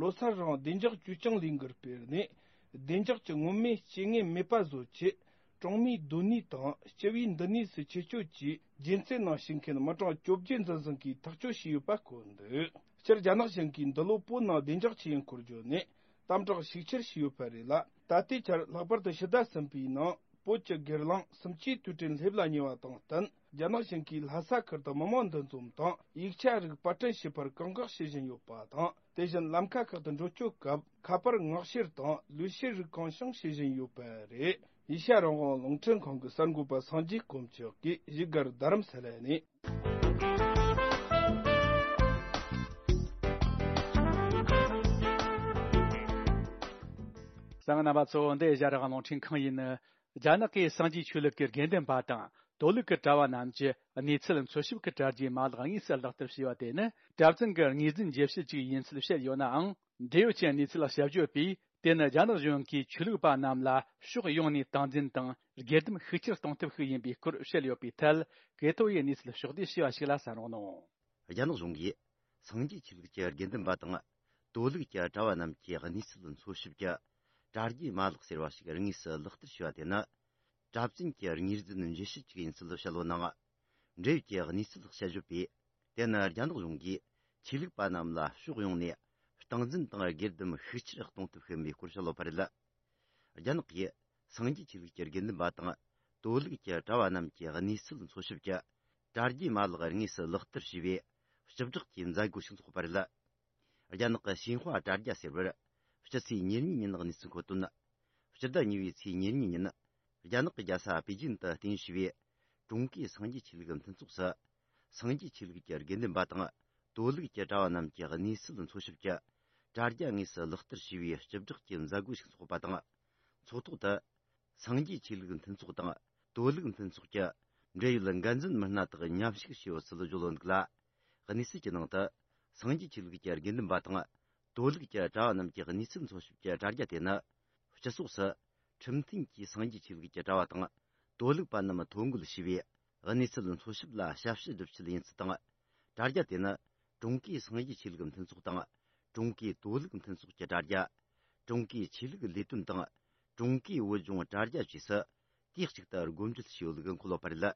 ལོ་སར་རིང་བདེ་འཇགས་བཅོས་སྐྱོང་ལས་འགུལ་སྤེལ་ནས། བདེ་འཇགས་ཀྱི་མངོན་མེད་རྐྱེན་ངན་མེད་པ་བཟོ་ཆེད། གྲོང་མིའི་སྡོད་གནས་དང་སྤྱི་བའི་འདུ་གནས་སུ་ཆེད་སྐྱོད་ཀྱིས་རྒྱུན་རྩེ་ནང་ཞུགས་མཁན་མི་གྲངས་བཅོ་བརྒྱད་འཛིན་བཟུང་གིས་ཐག་གཅོད་བྱས་ཡོད་པ་བཀོད་འདུག་སྤྱིར་རྒྱ་ནག་གཞུང་གིས་འདི་ལོ་བོད་ནང་བདེ་འཇགས་ཆེད་ཡིན་སྐོར་བརྗོད་ནས་དམ་དྲག་ཤུགས་ཆེར་བྱས་ཡོད་པ་རེད་ལ། ད་ལྟའི་ཆར་ལྷག་པར་དུ་ཕྱི་ཟླ་གསུམ་པའི་ནང་བོད་ཀྱི་སྒེར་ལངས་གསུམ་བཅུའི་དུས་དྲན་སླེབས་ལ་ཉེ་བ་དང་བསྟུན། རྒྱ་ནག་གཞུང་གིས་ལྷ་ས་ཁུལ་དུ་མི་མང་འདུ་འཛོམས་དང་ཡིག་ཆ་རིགས་པར་སྐྲུན་བྱེད་པར་བཀག་འགོག་བྱེད་བཞིན་ཡོད་པ་དང་། དེ་བཞིན་ལམ་ཁ་ཁག་ཏུ་འགྲོ་སྐྱོད་སྐབས་ཁ་པར་མངགས་བཤེར་དང་ལུས་བཤེར་རིགས་གང་བྱུང་བྱེད་བཞིན་ཡོད་པ་རེད། ཨེ་ཤ་ཡ་རང་དབང་རླུང་འཕྲིན་ཁང་གི་གསར་འགོད་པ་སངས་རྒྱས་དཀོན་མཆོག་གིས་བཞུགས་སྒར་རྡ་རམ་ས་ལ་ནས། གསན་མཁན་རྣམ་པ་ཚོ། འདི་ཨེ་ཤ་ཡ་རང་དབང་རླུང་འཕྲིན་ཁང་ཡིན། རྒྱ་ནག་གི་སངས་རྒྱས་ཆོས་ལུགས་ཀྱི་དགེ་འདུན་པ་དང་ དོ་ལུགས་ཀྱི་གྲྭ་བ་རྣམས་ཀྱི་གནས་ཚུལ་འཚོལ་ཞིབ་ཀྱི་གྲ་རྒྱས་མ་ལག་དངོས་སུ་ལག་བསྟར་བྱས་པ་དེ་ནི་གྲྭ་བཙུན་གྱི་ངོས་འཛིན་བརྗེ་བྱེད་ཅིག་ཡིན་ཚུལ་བཤད་ཡོད་ནའང་། འབྲེལ་ཡོད་ཀྱི་གནས་ཚུལ་དཔྱད་བརྗོད་པས། དེ་ནི་རྒྱ་ནག་གཞུང་གིས་ཆོས་ལུགས་པ་རྣམས་ལ་ཕྱོགས་ཡོངས་ནས་སྟངས་འཛིན་དང་སྒེར་སྡེམ་ཤུགས་ཆེར་གཏོང་ཐབས་ཤིག་ཡིན་པའི་སྐོར་བཤད་ཡོད་པའི་ཐད། ཀེ་ཐོ་ཡི་གནས་ཚུལ་ཕྱོགས་བསྡུས་ཞུས་པ་ཞིག་ལ་གསན་རོགས་གནང་། རྒྱ་ནག་གཞུང་གིས་སངས་རྒྱས་ཆོས་ལུགས་ཀྱི་དགེ་འདུན་པ་དང་། དོ་ལུགས་ཀྱི་གྲྭ་བ་རྣམས་ཀྱི་གནས་ཚུལ་འཚོལ་ཞིབ་ཀྱི་གྲ་རྒྱས་མ་ལག་ཟེར་བ་ཞིག་དངོས་སུ་ལག་བསྟར་བྱས་པ་དེ་ནི། གྲྭ་བཙུན་གྱི་ངོས་འཛིན་བརྗེ་བྱེད་ཅིག་ཡིན་ཚུལ་བཤད་ཡོད་ནའང་། འབྲེལ་ཡོད་ཀྱི་གནས་ཚུལ་དཔྱད་བརྗོད་པས། དེ་ནི་རྒྱ་ནག་གཞུང་གིས་ཆོས་ལུགས་པ་རྣམས་ལ་ཕྱོགས་ཡོངས་ནས་སྟངས་འཛིན་དང་སྒེར་སྡེམ་ཤུགས་ཆེར་གཏོང་ཐབས་ཤིག་ཡིན་པའི་སྐོར་བཤད་ཡོད་པ་རེད། རྒྱ་ནག་གིས་སངས་རྒྱས་ཆོས་ལུགས་ཀྱི་དགེ་འདུན་པ་དང་། དོ་ལུགས་ཀྱི་གྲྭ་བ་རྣམས་ཀྱི་གནས་ཚུལ་འཚོལ་ཞིབ་ཀྱི་གྲ་རྒྱས་མ་ལག་དངོས་སུ་ལག་བསྟར་བྱས་པའི་སྤྱི་བསྒྲགས་ཀྱི་མཛད་སྒོ་ཞིག་འཚོགས་པ་རེད། རྒྱ་ནག་གི་ཞིན་ཧྭ་དྲ་རྒྱ་ཟེར་བར། སྤྱི་ཚེས་ཉེར་གཉིས་ཉིན་གནས་ཚུལ་མཁོ་དོན། སྤྱི་ཟླ་གཉིས་པའི་ཚེས་ཉེར་གཉིས་ཉིན། རྒྱ་ནག་གི་རྒྱལ་ས་པེ་ཅིན་དུ་རྟེན་གཞི་བའི་ཀྲུང་གོའི་སངས་རྒྱས་ཆོས་ལུགས་མཐུན་ཚོགས་སུ། སངས་རྒྱས་ཆོས་ལུགས་ཀྱི་དགེ་འདུན་པ་དང་། དོ་ལུགས་ཀྱི་གྲྭ་བ་རྣམས་ཀྱི་གནས་ཚུལ་འཚོལ་ཞིབ་ཀྱི་དྲ་རྒྱ་དངོས་སུ་ལག་བསྟར་བྱས་པའི་སྤྱི་བསྒྲགས་ཀྱི་མཛད་སྒོ་ཞིག་འཚོགས་པ་དང་། ཚོགས་ཐོག་ཏུ། སངས་རྒྱས་ཆོས་ལུགས་མཐུན་ཚོགས་དང་། དོ་ལུགས་མཐུན་ཚོགས་ཀྱི་འབྲེལ་ཡོད་འགན་འཛིན་མི་སྣ་དག་མཉམ་ཞུགས་བྱས་ཡོད་ཚུལ་བརྗོད་ཡོད་འདུག་ལ། གནས་ཚུལ་གྱི་ནང་དུ། སངས་རྒྱས་ཆོས་ལུགས་ཀྱི་དགེ་འདུན་པ་དང་། དོ་ལུགས་ཀྱི་གྲྭ་བ་རྣམས་ཀྱི་གནས་ཚུལ་འཚོལ་ཞིབ་ཀྱི་དྲ་རྒྱ་དེ་ནི། སྤྱི་ཚོགས་སུ། ཁྲིམས་མཐུན་གྱིས་སངས་རྒྱས་ཆོས་ལུགས་ཀྱི་གྲྭ་བ་དང་། དོ་ལུགས་པ་རྣམས་ཐོ་འགོད་བྱས་པའི་གནས་ཚུལ་འཚོལ་ཞིབ་ལ་ཞབས་ཞུ་སྒྲུབ་ཆེད་ཡིན་ཚུལ་དང་། དྲ་རྒྱ་དེ་ནི། ཀྲུང་གོའི་སངས་རྒྱས་ཆོས་ལུགས་མཐུན་ཚོགས་དང་། ཀྲུང་གོའི་དོ་ལུགས་མཐུན་ཚོགས་ཀྱི་དྲ་རྒྱ། ཀྲུང་གོའི་ཆོས་ལུགས་ལས་དོན་དང་། ཀྲུང་གོའི་བོད་ལྗོངས་དྲ་རྒྱ་བཅས་སུ། དུས་གཅིག་ཏུ་སྒོ་འབྱེད་བྱས་ཡོད་ལུགས་འཁོད་ཡོད་པ་རེད།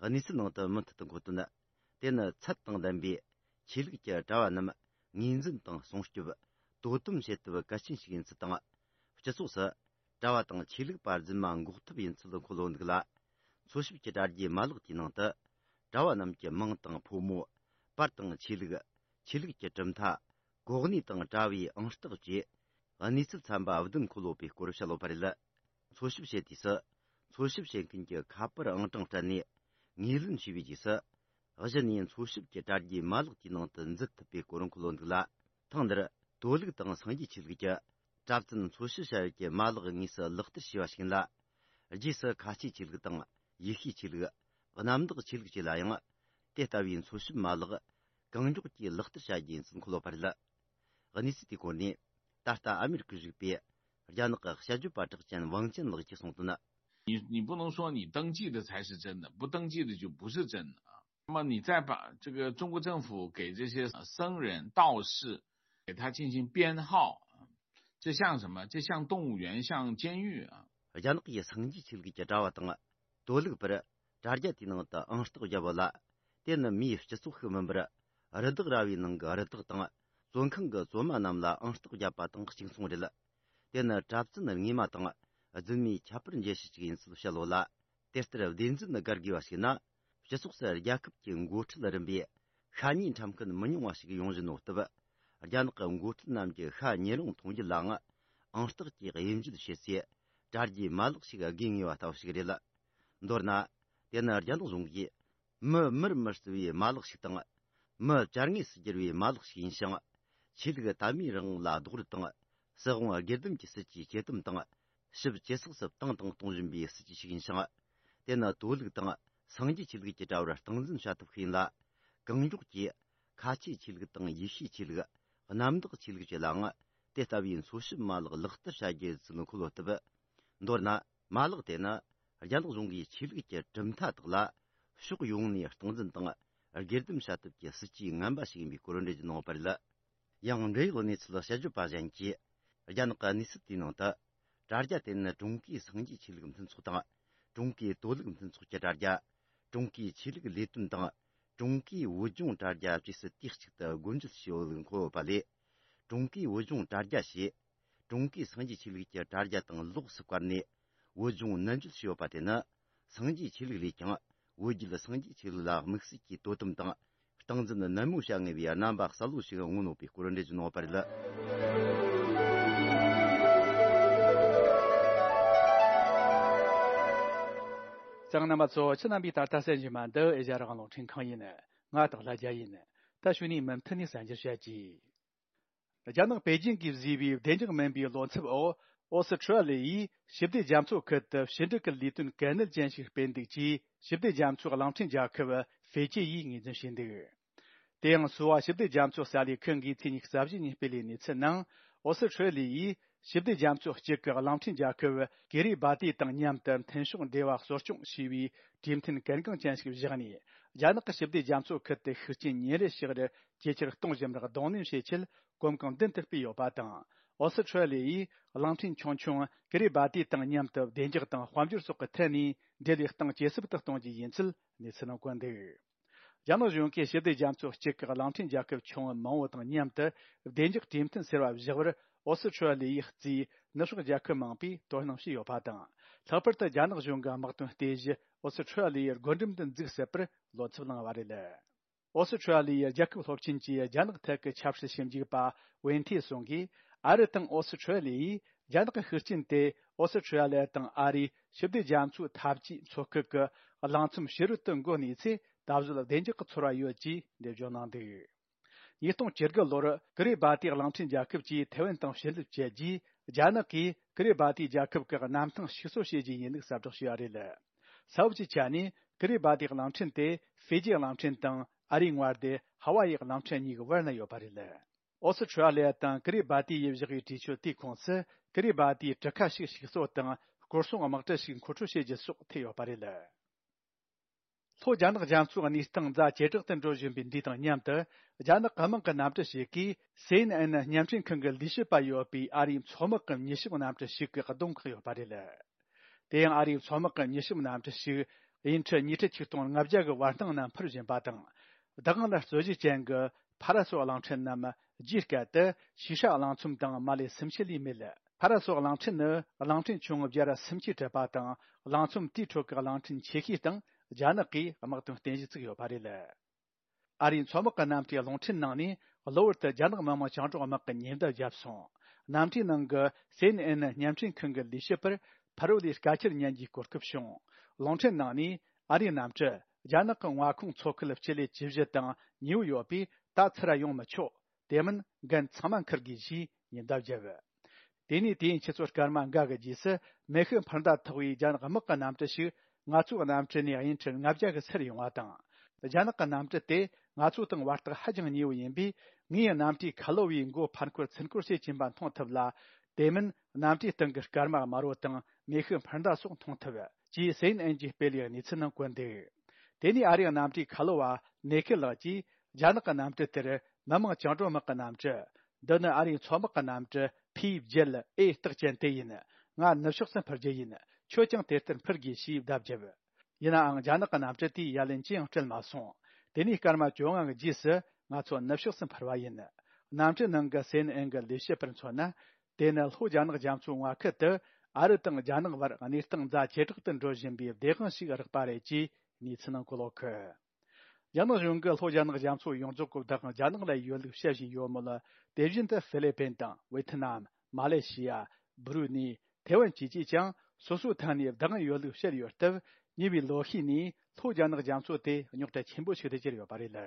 གནས་ཚུལ་ནང་དུ་མུ་མཐུད་དུ་འཁོད་དོན། དེ་ནི་ཚད་དང་ལྡན་པའི་ཆོས་ལུགས་ཀྱི་གྲྭ་བ་རྣམས་ངོས་འཛིན་དང་སྲུང་སྐྱོབ། དོ་དམ་བྱེད་ཐབས་གལ་ཆེན་ཞིག་ཡིན་ཚུལ་དང་། སྤྱི་ཚོགས་སུ་གྲྭ་བ་དང་ཆོས་ལུགས་པ་རྫུན་མ་འགོག་ཐབས་ཡིན་ཚུལ་འཁོད་ཡོད་འདུག་ལ། འཚོལ་ཞིབ་ཀྱི་དྲ་རྒྱའི་མ་ལག་དེའི་ནང་དུ། གྲྭ་བ་རྣམས་ཀྱི་མིང་དང་ཕོ་མོ། པར་དང་ཆོས་ལུགས། ཆོས་ལུགས་ཀྱི་གྲུབ་མཐའ། གོ་གནས་དང་གྲྭ་བའི་ཨང་རྟགས་བཅས། གནས་ཚུལ་ཚན་པ་བདུན་འཁོད་ཡོད་པའི་སྐོར་བཤད་ཡོད་པ་རེད། འཚོལ་ཞིབ་བྱེད་དུས་སུ། འཚོལ་ཞིབ་བྱེད་མཁན་གྱི་ཁ་པར་ཨང་གྲངས་སྤྲད་ནས། ངོས་ལེན་བྱས་པའི་རྗེས་སུ། གཞི་ནས་འཚོལ་ཞིབ་ཀྱི་དྲ་རྒྱའི་མ་ལག་དེའི་ནང་དུ་འཛུལ་ཐུབ་པའི་སྐོར་འཁོད་ཡོད་འདུག་ལ། ཐེངས་འདིར་དོ་ལུགས་དང་སངས་རྒྱས་ཆོས་ལུགས་ཀྱི་གྲྭ་བཙུན་འཚོལ་ཞིབ་བྱ་ཡུལ་གྱི་མ་ལག་དངོས་སུ་ལག་བསྟར་བྱས་པ་ཞིག་ཡིན་ལ། རྗེས་སུ་ཁ་ཆེའི་ཆོས་ལུགས་དང་ཡེ་ཤུའི་ཆོས་ལུགས། གནམ་བདག་ཆོས་ལུགས་བཅས་ལ་ཡང་། དེ་ལྟ་བུའི་འཚོལ་ཞིབ་མ་ལག་གང་མགྱོགས་ཀྱིས་ལག་བསྟར་བྱ་རྒྱུ་ཡིན་ཚུལ་འཁོད་ཡོད་པ་རེད། གནས་ཚུལ་དེའི་སྐོར་ནས། ད་ལྟ་ཨ་མེ་རི་ཁར་བཞུགས་པའི་རྒྱ་ནག་གི་དཔྱད་བརྗོད་པ་གྲགས་ཅན་ཝང་ཅན་ལགས་ཀྱིས་གསུངས་དོན། 你你不能说你登记的才是真的，不登记的就不是真的啊。那么你再把这个中国政府给这些僧人、道士，给他进行编号，这像什么？这像动物园，像监狱啊。 རྒྱ་ནག་གི་སངས་རྒྱས་ཆོས་ལུགས་ཀྱི་གྲྭ་བ་དང་། དོ་ལུགས་པར་དྲ་རྒྱ་དེའི་ནང་དུ་ཨང་རྟགས་བརྒྱབ་ཡོད་ལ། དེ་ནི་མིའི་སྤྱི་ཚོགས་ཤིག་མིན་པར། རི་དྭགས་ར་བའི་ནང་གི་རི་དྭགས་དང་། བཙོན་ཁང་གི་བཙོན་མ་རྣམས་ལ་ཨང་རྟགས་བརྒྱབ་པ་དང་གཅིག་མཚུངས་རེད། དེ་ནི་གྲྭ་བཙུན་རྔས་མ་དང་རྫུན་མའི་ཁྱད་པར་འབྱེད་བྱེད་ཅིག་ཡིན་ཚུལ་བཤད་ཡོད་ལ། དེ་ལྟར་བདེན་རྫུན་བཀར་དགོས་པ་ཞིག་ན། སྤྱི་ཚོགས་སུ་རྒྱལ་ཁབ་ཀྱི་འགོ་ཁྲིད་རིམ་པས་ཤ་ཉེས་ཁྲིམས་འགལ་མི་ཉུང་བ་ཞིག་ཡོང་བཞིན་ཡོད་སྟབས། རྒྱ་ནག་གི་འགོ་ཁྲིད་རྣམས་ཀྱིས་ཤ་ཉེ་རུང་མཐོང་རྒྱུ་ལའང་ཨང་རྟགས་ཀྱིས་དབྱེ་འབྱེད་བྱེད་སའི་དྲ་རྒྱའི་མ་ལག་ཞིག་དགོས་ངེས་པ་ལྟ་བུ་ཞིག་རེད། མདོར་ན། དེ་ནི་རྒྱ་ནག་གཞུང་གིས་མི་མིར་མི་བརྩི་བའི་མ་ལག་ཞིག་དང་། མི་བྱ་དངོས་སུ་བསྒྱུར་བའི་མ་ལག་ཞིག་ཡིན་ཞིང་། ཆོས་ལུགས་དད་མོས་རང་དབང་ལ་རྡོག་རོལ་དང་། སྲིད་དབང་སྒེར་སྡེམ་གྱི་སྲིད་ཇུས་ཇེ་དམ་དང་། ཞིབ་ཇེ་ཚགས་སུ་བཏང་དང་གཏོང་བཞིན་པའི་སྲིད་ཇུས་ཤིག་ཡིན་ཞིང་། དེ་ནི་དོ་ལུགས་དང་སངས་རྒྱས་ཆོས་ལུགས་ཀྱི་དྲ་བར་སྟངས་འཛིན་བྱ་ཐབས་ཤིག་ཡིན་ལ། གང་མགྱོགས་ཀྱིས་ཁ་ཆེའི་ཆོས་ལུགས་དང་ཡེ་ཤུའི་ཆོས་ལུགས། གནམ་བདག་ཆོས་ལུགས་བཅས་ལའང་དེ་ལྟ་བུའི་འཚོལ་ཞིབ་མ་ལག་ལག་བསྟར་བྱ་རྒྱུ་ཡིན་ཚུལ་འཁོད་ཡོད་སྟབས། མདོར་ན། མ་ལག་དེ་ནི་རྒྱ་ནག་གཞུང་གིས་ཆོས་ལུགས་ཀྱི་གྲུབ་མཐའ་དག་ལ་ཕྱོགས་ཡོངས་ནས་སྟངས་འཛིན་དང་སྒེར་སྡེམ་བྱ་ཐབས་ཀྱི་སྲིད་ཇུས་ངན་པ་ཞིག་ཡིན་པའི་སྐོར་འགྲེལ་བརྗོད་གནང་ཡོད་པ་རེད། ཡང་འབྲེལ་ཡོད་གནས་ཚུལ་དཔྱད་བརྗོད་པ་གཞན་གྱིས། རྒྱ་ནག་གི་གནས་ཚུལ་དེའི་ནང་དུ། དྲ་རྒྱ་དེ་ནི་ཀྲུང་གོའི་སངས་རྒྱས་ཆོས་ལུགས་མཐུན་ཚོགས་དང་། ཀྲུང་གོའི་དོ་ལུགས་མཐུན་ཚོགས་ཀྱི་དྲ་རྒྱ། ཀྲུང་གོའི་ཆོས་ལུགས་ལས་དོན་དང་། ཀྲུང་གོའི་བོད་ལྗོངས་དྲ་རྒྱ་བཅས་སུ་དུས་གཅིག་ཏུ་སྒོ་འབྱེད་བྱས་ཡོད་ལུགས་འཁོད་ཡོད་པ་ལས། ཀྲུང་གོའི་བོད་ལྗོངས་དྲ་རྒྱ་ཞེས། ཀྲུང་གོའི་སངས་རྒྱས་ཆོས་ལུགས་ཀྱི་དྲ་རྒྱ་དང་ལོགས་སུ་བཀར་ནས། བོད་ལྗོངས་ནན་བརྗོད་བྱས་ཡོད་པ་དེ་ནི། སངས་རྒྱས་ཆོས་ལུགས་ལས་ཀྱང་། བོད་བརྒྱུད་སངས་རྒྱས་ཆོས་ལུགས་ལ་དམིགས་བསལ་གྱི་དོ་དམ་དང་། སྟངས་འཛིན་ནན་མོ་བྱ་ངེས་པའི་རྣམ་པ་གསལ་བོ་ཞིག་མངོན་ཡོད་པའི་སྐོར་འགྲེལ་བརྗོད་གནང་ཡོད་པ་རེད། གསན་མཁན་རྣམ་པ་ཚོ། ཁྱེད་རྣམ་པས་ད་ལྟ་གསན་བཞིན་པ་འདི་ཨེ་ཤ་ཡ་རང་དབང་རླུང་འཕྲིན་ཁང་ཡིན། ང་སྟག་ལྷ་རྒྱལ་ཡིན། ད་གཞུག་ནས་མུ་མཐུད་ནས་གསན་རྒྱུར་བྱ་གྱིས། རྒྱ་ནག་པེ་ཅིང་གིས་བཟོས་པའི་བདེ་འཇགས་མིན་པའི་བློ་འཚབ་འོག་ཨོ་སི་ཁྲུ་ལི་ཡིས་ཞི་བདེ་རྒྱ་མཚོ་ཁུལ་དུ་ཕྱི་འབྲེལ་གྱི་ལས་དོན་གལ་གནད་ཅན་ཞིག་སྤེལ་འདུག་ཅེས་ཞི་བདེ་རྒྱ་མཚོའི་གླིང་ཕྲན་རྒྱལ་ཁབ་ཧྥེ་ཅི་ཡིས་ངོས་འཛིན་བྱས་འདུག་དེ་ཡང་སུའོ་ཞི་བདེ་རྒྱ་མཚོ་གསར་ལས་ཁང་གིས་ཚེས་ཉི་ཤུ་རྩ་བཞི་ཉིན་སྤེལ་བའི་གནས་ཚུལ་ནང་། ཨོ་སི་ཁྲུ་ལི་ཡིས་ཞི་བདེ་རྒྱ་མཚོ་གཅིག་གི་གླིང་ཕྲན་རྒྱལ་ཁབ་ཀི་རི་སྦ་ཏི་དང་མཉམ་དུ་མཐུན་ཕྱོགས་འབྲེལ་བ་གསོ་སྐྱོང་བྱས་པའི་གྲོས་མཐུན་གལ་འགངས་ཅན་ཞིག་བཞག་ནས། རྒྱ་ནག་གི་ཞི་བདེ་རྒྱ་མཚོ་ཁུལ་དུ་ཤུགས་རྐྱེན་ཉིན་རེ་ཞིག་རུ་ཇེ་ཆེར་གཏོང་བཞིན་པར་གདོང་ལེན་བྱེད་ཆེད་གོམ་གང་མདུན་དུ་སྤོས་ཡོད་པ་དང་། ཨོ་སི་ཁྲུ་ལི་ཡིས་གླིང་ཕྲན་ཆུང་ཆུང་ཀི་རི་སྦ་ཏི་དང་མཉམ་དུ་བདེ་འཇགས་དང་དཔལ་འབྱོར་སོགས་ཀྱི་ཐད་ནས་འབྲེལ་བའི་སྟངས་ཇེ་ཟབ་ཏུ་གཏོང་རྒྱུ་ཡིན་ཚུལ་གནས་ཚུལ་ནང་བཀོད་འདུག་རྒྱ་ནག་གཞུང་གིས་ཞི་བདེ་རྒྱ་མཚོ་གཅིག་གི་གླིང་ཕྲན་རྒྱལ་ཁབ་ཆུང་ངུ་མང་བོ་དང་མཉམ་དུ་བདེ་འཇགས་གྲོས་མཐུན་ཟེར་བ་བཞག་པར་ཨོ་སི་ཁྲུ་ལི་ཡིས་བརྩིས། ནུབ་ཕྱོགས་རྒྱལ་ཁབ་མང་པོས་དོ་སྣང་བྱས་ཡོད་པ་དང་། ལྷག་པར་དུ་རྒྱ་ནག་གཞུང་གི་དམག་དོན་རྟེན་གཞི་ཨོ་སི་ཁྲུ་ལི་ཡི་སྒོ་འགྲམ་དུ་འཛུགས་སྲིད་པར་བློ་འཚབ་གནང་བ་རེད། ཨོ་སི་ཁྲུ་ལི་ཡི་རྒྱལ་ཁབ་སློབ་ཆེན་གྱི་རྒྱ་ནག་ཐད་ཀྱི་ཆབ་སྲིད་ཞིབ་འཇུག་པ་ཝེན་ཐེ་སུང་གིས། ཨ་རི་དང་ཨོ་སི་ཁྲུ་ལི་ཡིས་རྒྱ་ནག་གི་ཤུགས་རྐྱེན་དེ་ཨོ་སི་ཁྲུ་ལི་ཡ་དང་ཨ་རིའི་ཞི་བདེ་རྒྱ་མཚོའི་འཐབ་ཇུས་མཚོ་ཁུལ་གྱི་གླིང་ཚོམ་ཕྱི་རོལ་དུ་འགོ་གནས་ཚེ་ད་གཟོད་བདེ་འཇགས་ཀྱི་ཚོར་བ་ཡོད་ཅེས་འགྲེལ་བརྗོད་གནང་འདུག་ཉིས་སྟོང་བཅུ་དགུ་ལོར་ཀི་རི་སྦ་ཏི་གླིང་ཕྲན་རྒྱལ་ཁབ་ཀྱིས་ཐེ་ཝན་དང་ཕྱིར་སློབ་བྱས་རྗེས། རྒྱ་ནག་གིས་ཀི་རི་སྦ་ཏི་རྒྱལ་ཁབ་ཀྱི་གནམ་ཐང་ཞིག་གསོ་བྱེད་རྒྱུ་ཡིན་ལུགས་གསལ་བསྒྲགས་བྱས་པ་རེད། ས་བབ་ཀྱི་ཆ་ནས་ཀི་རི་སྦ་ཏི་གླིང་ཕྲན་དེ་ཧྥེ་ཇི་གླིང་ཕྲན་དང་ཨ་རིའི་མངའ་སྡེ་ཧ་ཝ་ཡི་གླིང་ཕྲན་གཉིས་ཀྱི་བར་ན་ཡོད་པ་རེད། ཨོ་སི་ཁྲུ་ལི་ཡ་དང་ཀི་རི་སྦ་ཏི་ཡིས་བཞག་པའི་གྲོས་ཆོད་དེའི་ཁོངས་སུ་ཀི་རི་སྦ་ཏིའི་གྲུ་ཁ་ཞིག་ཞིག་གསོ་དང་སྐོར་སྲུང་དམག་གྲུ་ཞིག་མཁོ་སྤྲོད་བྱེད་རྒྱུ་སོགས་ཐེ་ཡོད་པ་རེད། ལྷོ་རྒྱ་ནག་རྒྱ་མཚོའི་གནས་སྟངས་ཛ་ཇེ་དྲག་ཏུ་འགྲོ་བཞིན་པའི་འདི་དང་མཉམ་དུ། རྒྱ་ནག་གི་དམག་གི་གནམ་གྲུ་ཞིག་གིས་སེ་ཨེན་ཨེན་བརྙན་འཕྲིན་ཁང་གི་ལས་བྱེད་པ་ཡོད་པའི་ཨ་རིའི་མཚོ་དམག་གི་མྱུལ་ཞིབ་གནམ་གྲུ་ཞིག་གི་གདོང་བཀག་ཡོད་པ་རེད། དེ་ཡང་ཨ་རིའི་མཚོ་དམག་གི་མྱུལ་ཞིབ་གནམ་གྲུ་ཞིག་དབྱིན་ཁྲི་ཉི་ཁྲི་ཆིག་སྟོང་ལྔ་བརྒྱ་གི་བར་སྣང་ན་འཕུར་བཞིན་པ་དང་། བདག་དབང་ལ་རྩོད་གཞི་ཅན་གྱི་ཕ་ར་སོགས་གླིང་ཕྲན་རྣམས་རྒྱའི་སྐད་དུ་ཤི་ཧྲ་གླིང་ཚོམ་དང་མ་ལེ་སུམ་ཆུ་ལས་མེད། ཕ་ར་སོགས་གླིང་ཕྲན་ནི་གླིང་ཕྲན་ཆུང་ངུ་བརྒྱ་ར་སུམ་ཅུ་གྲུབ་པ་དང་། གླིང་ཚོམ་དེའི་ཁྲོད་ཀྱི་གླིང་ཕྲན་ཆེ་ཤོས་སྟེང་རྒྱ་ནག་གིས་དམག་དོན་རྟེན་གཞི་བཙུགས་ཡོད་པ་རེད། ཨ་རིའི་མཚོ་དམག་གི་གནམ་གྲུའི་རླུང་འཕྲིན་ནང་ནས་གློ་བུར་དུ་རྒྱ་ནག་མི་དམངས་བཅིངས་འགྲོལ་དམག་གི་ཉེན་བརྡ་བརྒྱབ་སོང་། གནམ་གྲུའི་ནང་གི་སེ་ཨེན་ཨེན་བརྙན་འཕྲིན་ཁང་གི་ལས་བྱེད་པར་ཕ་རོལ་ལས་སྐད་ཆ་ཉན་རྒྱུའི་གོ་སྐབས་བྱུང་། རླུང་འཕྲིན་ནང་ནས་ཨ་རིའི་གནམ་གྲུ་རྒྱ་ནག་གི་མངའ་ཁོངས་མཚོ་ཁུལ་སྤྱི་ལེ་བཅུ་བཞི་དང་ཉེ་བོ་ཡོད་པས་ད་ཚུར་ཡོང་མི་ཆོག་དེ་མིན་འགན་ཚང་མ་འཁུར་དགོས་ཞེས་ཉེན་བརྡ་བརྒྱབ། དེ་ནས་དུས་ཡུན་ཆུ་ཚོད་སྐར་མ་འགའ་གི་རྗེས་སུ་མེ་ཤུགས་འཕུར་མདའ་ཐོགས་པའི་རྒྱ་ནག་དམག་གི་གནམ་གྲུ་ཞིག་ང་ཚོའི་གནམ་གྲུ་ནས་དབྱིན་ཁྲི་ལྔ་བརྒྱ་གི་ཚུར་ཡོང་བ་དང་། རྒྱ་ནག་གི་གནམ་གྲུ་དེ་ང་ཚོ་དང་བར་ཐག་ཧ་ཅང་ཉེ་བོ་ཡིན་པས། ངས་གནམ་གྲུའི་ཁ་ལོ་བའི་མགོ་ཕར་འཁོར་ཚུར་འཁོར་བྱེད་ཀྱིན་པ་མཐོང་ཐུབ་ལ། དེ་མིན་གནམ་གྲུའི་སྟེང་གི་སྐར་མ་དམར་བོ་དང་མེ་ཤུགས་འཕུར་མདའ་སོགས་མཐོང་ཐུབ། ཅེས་སེ་ཨེན་ཨེན་གྱིས་སྤེལ་བའི་གནས་ཚུལ་ནང་བཀོད་འདུག་དེ་ནས་ཨ་རིའི་གནམ་གྲུའི་ཁ་ལོ་བ་ནེ་ཁེ་ལགས་ཀྱིས། རྒྱ་ནག་གི་གནམ་གྲུ་དེར་མི་དམངས་བཅིངས་འགྲོལ་དམག་གི་གནམ་གྲུ། འདི་ནི་ཨ་རིའི་མཚོ་དམག་གི་གནམ་གྲུ་ཕི་བརྒྱད་ཨེ་རྟགས་ཅན་དེ་ཡིན། ང་ནུབ་ཕྱོགས་སུ་འཕུར་རྒྱུ་ཡིན། ཁྱོད་ཀྱང་དེ་ལྟར་འཕུར་དགོས་ཞེས་བརྡ་བརྒྱབ། ཡིན་ནའང་རྒྱ་ནག་གི་གནམ་གྲུ་དེས་ཡ་ལན་ཅི་ཡང་སྤྲད་མ་སོང་། དེ་ནས་སྐར་མ་བཅོ་ལྔ་གི་རྗེས་སུ་ང་ཚོ་ནུབ་ཕྱོགས་སུ་འཕུར་བ་ཡིན། གནམ་གྲུའི་ནང་གི་སེ་ཨེན་ཨེན་གྱི་ལས་བྱེད་པར་མཚོན་ན། དེ་ནི་ལྷོ་རྒྱ་ནག་རྒྱ་མཚོའི་མངའ་ཁུལ་དུ་ཨ་རི་དང་རྒྱ་ནག་བར་གནས་སྟངས་ཛ་ཇེ་དྲག་ཏུ་འགྲོ་བཞིན་པའི་བདེན་དཔང་ཞིག་རག་པ་རེད་ཅེས་གནས་ཚུལ་ནང་གོ་ལོག་གི། རྒྱ་ནག་གཞུང་གིས་ལྷོ་རྒྱ་ནག་རྒྱ་མཚོ་ཡོངས་རྫོགས་ཀྱི་བདག་དབང་རྒྱ་ནག་ལ་ཡོད་ལུགས་བཤད་བཞིན་ཡོད་མོད། དེ་བཞིན་དུ་ཧྥི་ལི་པིན་དང་ཝེ་ཐི་ནམ། མ་ལེ་ཤི་ཡ། སྦུ་རུ་ནི། ཐེ་ཝན་བཅས་ཀྱིས་ཀྱང་སོ་སོའི་ཐད་ནས་བདག་དབང་ཡོད་ལུགས་བཤད་ཡོད་སྟབས། ཉེ་བའི་ལོ་ཤས་ནས་ལྷོ་རྒྱ་ནག་རྒྱ་མཚོ་དེ་རྙོག་དྲ་ཆེན་པོ་ཞིག་ཏུ་གྱུར་ཡོད་པ་རེད།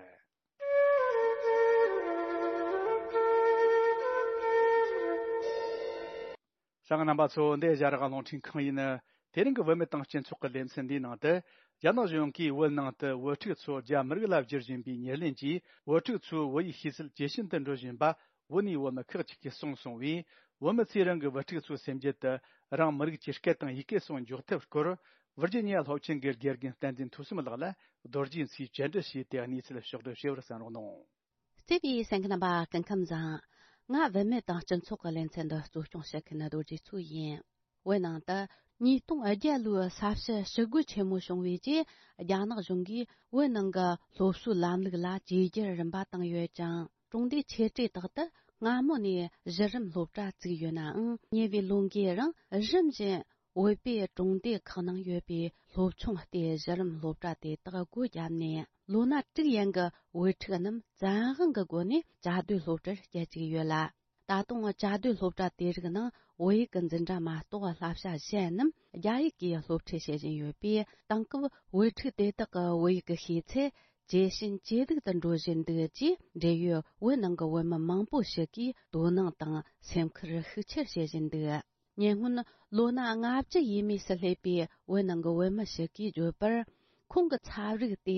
གསན་མཁན་རྣམ་པ་ཚོ། འདི་ཨེ་ཤ་ཡ་རང་དབང་རླུང་འཕྲིན་ཁང་ཡིན། དེ་རིང་གི་བུད་མེད་དང་སྤྱི་ཚོགས་ཀྱི་ལེ་ཚན་འདིའི་ནང་དུ། རྒྱ་ནག་གཞུང་གིས་བོད་ནང་དུ་བོད་ཕྲུག་ཚོ་རྒྱ་མི་རིགས་ལ་བསྒྱུར་བཞིན་པའི་ཉེར་ལེན་གྱིས། བོད་ཕྲུག་ཚོའི་བོད་ཡིག་ཤེས་ཚད་ཇེ་ཞན་དུ་འགྲོ་བཞིན་པ་བོད་ནས་བོད་མི་ཁག་ཅིག་གིས་གསུངས་སོང་བས། བོད་མི་ཚོས་རང་གི་བུ་ཕྲུག་ཚོའི་སེམས་རྒྱུད་དུ་རང་མི་རིགས་ཀྱི་སྐད་དང་ཡི་གེ་སོགས་འཇོག་ཐབས་སྐོར། ཝིར་ཇི་ནི་ཡ་སློབ་ཆེན་གྱི་དགེ་རྒན་བསྟན་འཛིན་ཐོས་བསམ་ལགས་ལ་རྡོ་རྗེ་མཚོས་བཅར་འདྲི་བྱས་ཏེ་གནས་ཚུལ་ཕྱོགས་བསྒྲིགས་བྱས་པར་གསན་རོགས་གནང་། བརྩེ་བའི་གསན་མཁན་རྣམ་པ། སྐུ་ཁམས་བཟང་། ང་བུད་མེད་དང་སྤྱི་ཚོགས་ཀྱི་ལེ་ཚན་འདི་གཙོ་སྐྱོང་བྱེད་མཁན་རྡོ་རྗེ་མཚོ་ཡིན། བོད་ནང་དུ་ཉིས་སྟོང་བརྒྱད་ལོའི་ས་བྱི་ཞི་རྒོལ་ཆེན་མོ་བྱུང་བའི་རྗེས། རྒྱ་ནག་གཞུང་གིས་བོད་ནང་གི་སློབ་གསོའི་ལམ་ལུགས་ལ་བཅོས་བསྒྱུར་རིམ་པ་བཏང་ཡོད་ཅིང་། གྲོང་སྡེའི་ཆེ་གྲས་དག་ཏུ་སྔ་མོ་ནས་གཞི་རིམ་སློབ་གྲྭ་བཙུགས་ཡོད་ནའང་། ཉེ་བའི་ལོ་འགའི་རིང་རིམ་བཞིན་བོད་པའི་གྲོང་སྡེ་ཁག་ནང་ཡོད་པའི་སློབ་ཆུང་སྟེ་གཞི་རིམ་སློབ་གྲྭ་དེ་དག་སྒོ་བརྒྱབ་ནས། ལོ་ན་དྲུག་ཡན་གྱི་བོད་ཕྲུག་རྣམས་བཙན་དབང་གི་སྒོ་ནས་བཅའ་སྡོད་སློབ་གྲྭར་བསྐྱལ་བཅུག་ཡོད་ལ། ད་དུང་བཅའ་སྡོད་སློབ་གྲྭ་དེ་རིགས་ནང་བོད་ཡིག་གི་འཛིན་གྲྭ་མ་གཏོགས་བསླབ་བྱ་གཞན་རྣམས་རྒྱ་ཡིག་གིས་སློབ་ཁྲིད་བྱེད་བཞིན་ཡོད་པས། དེང་སྐབས་བོད་ཕྲུག་དེ་དག་གི་བོད་ཡིག་གི་ཤེས་ཚད་ཇེ་ཞན་ཇེ་སྡུག་ཏུ་འགྲོ་བཞིན་འདུག་ཅེས། འབྲེལ་ཡོད་བོད་ནང་གི་བོད་མི་མང་པོ་ཞིག་གིས་དོ་སྣང་དང་སེམས་ཁུར་ཤུགས་ཆེར་བྱེད་བཞིན་འདུག། ཉེ་སྔོན་ལོ་ན་ལྔ་བཅུ་ཡས་མས་སུ་སླེབས་པའི་བོད་ནང་གི་བོད་མི་ཞིག་གིས་བརྗོད་པར། ཁོང་གི་ཚབ་རིགས་དེ་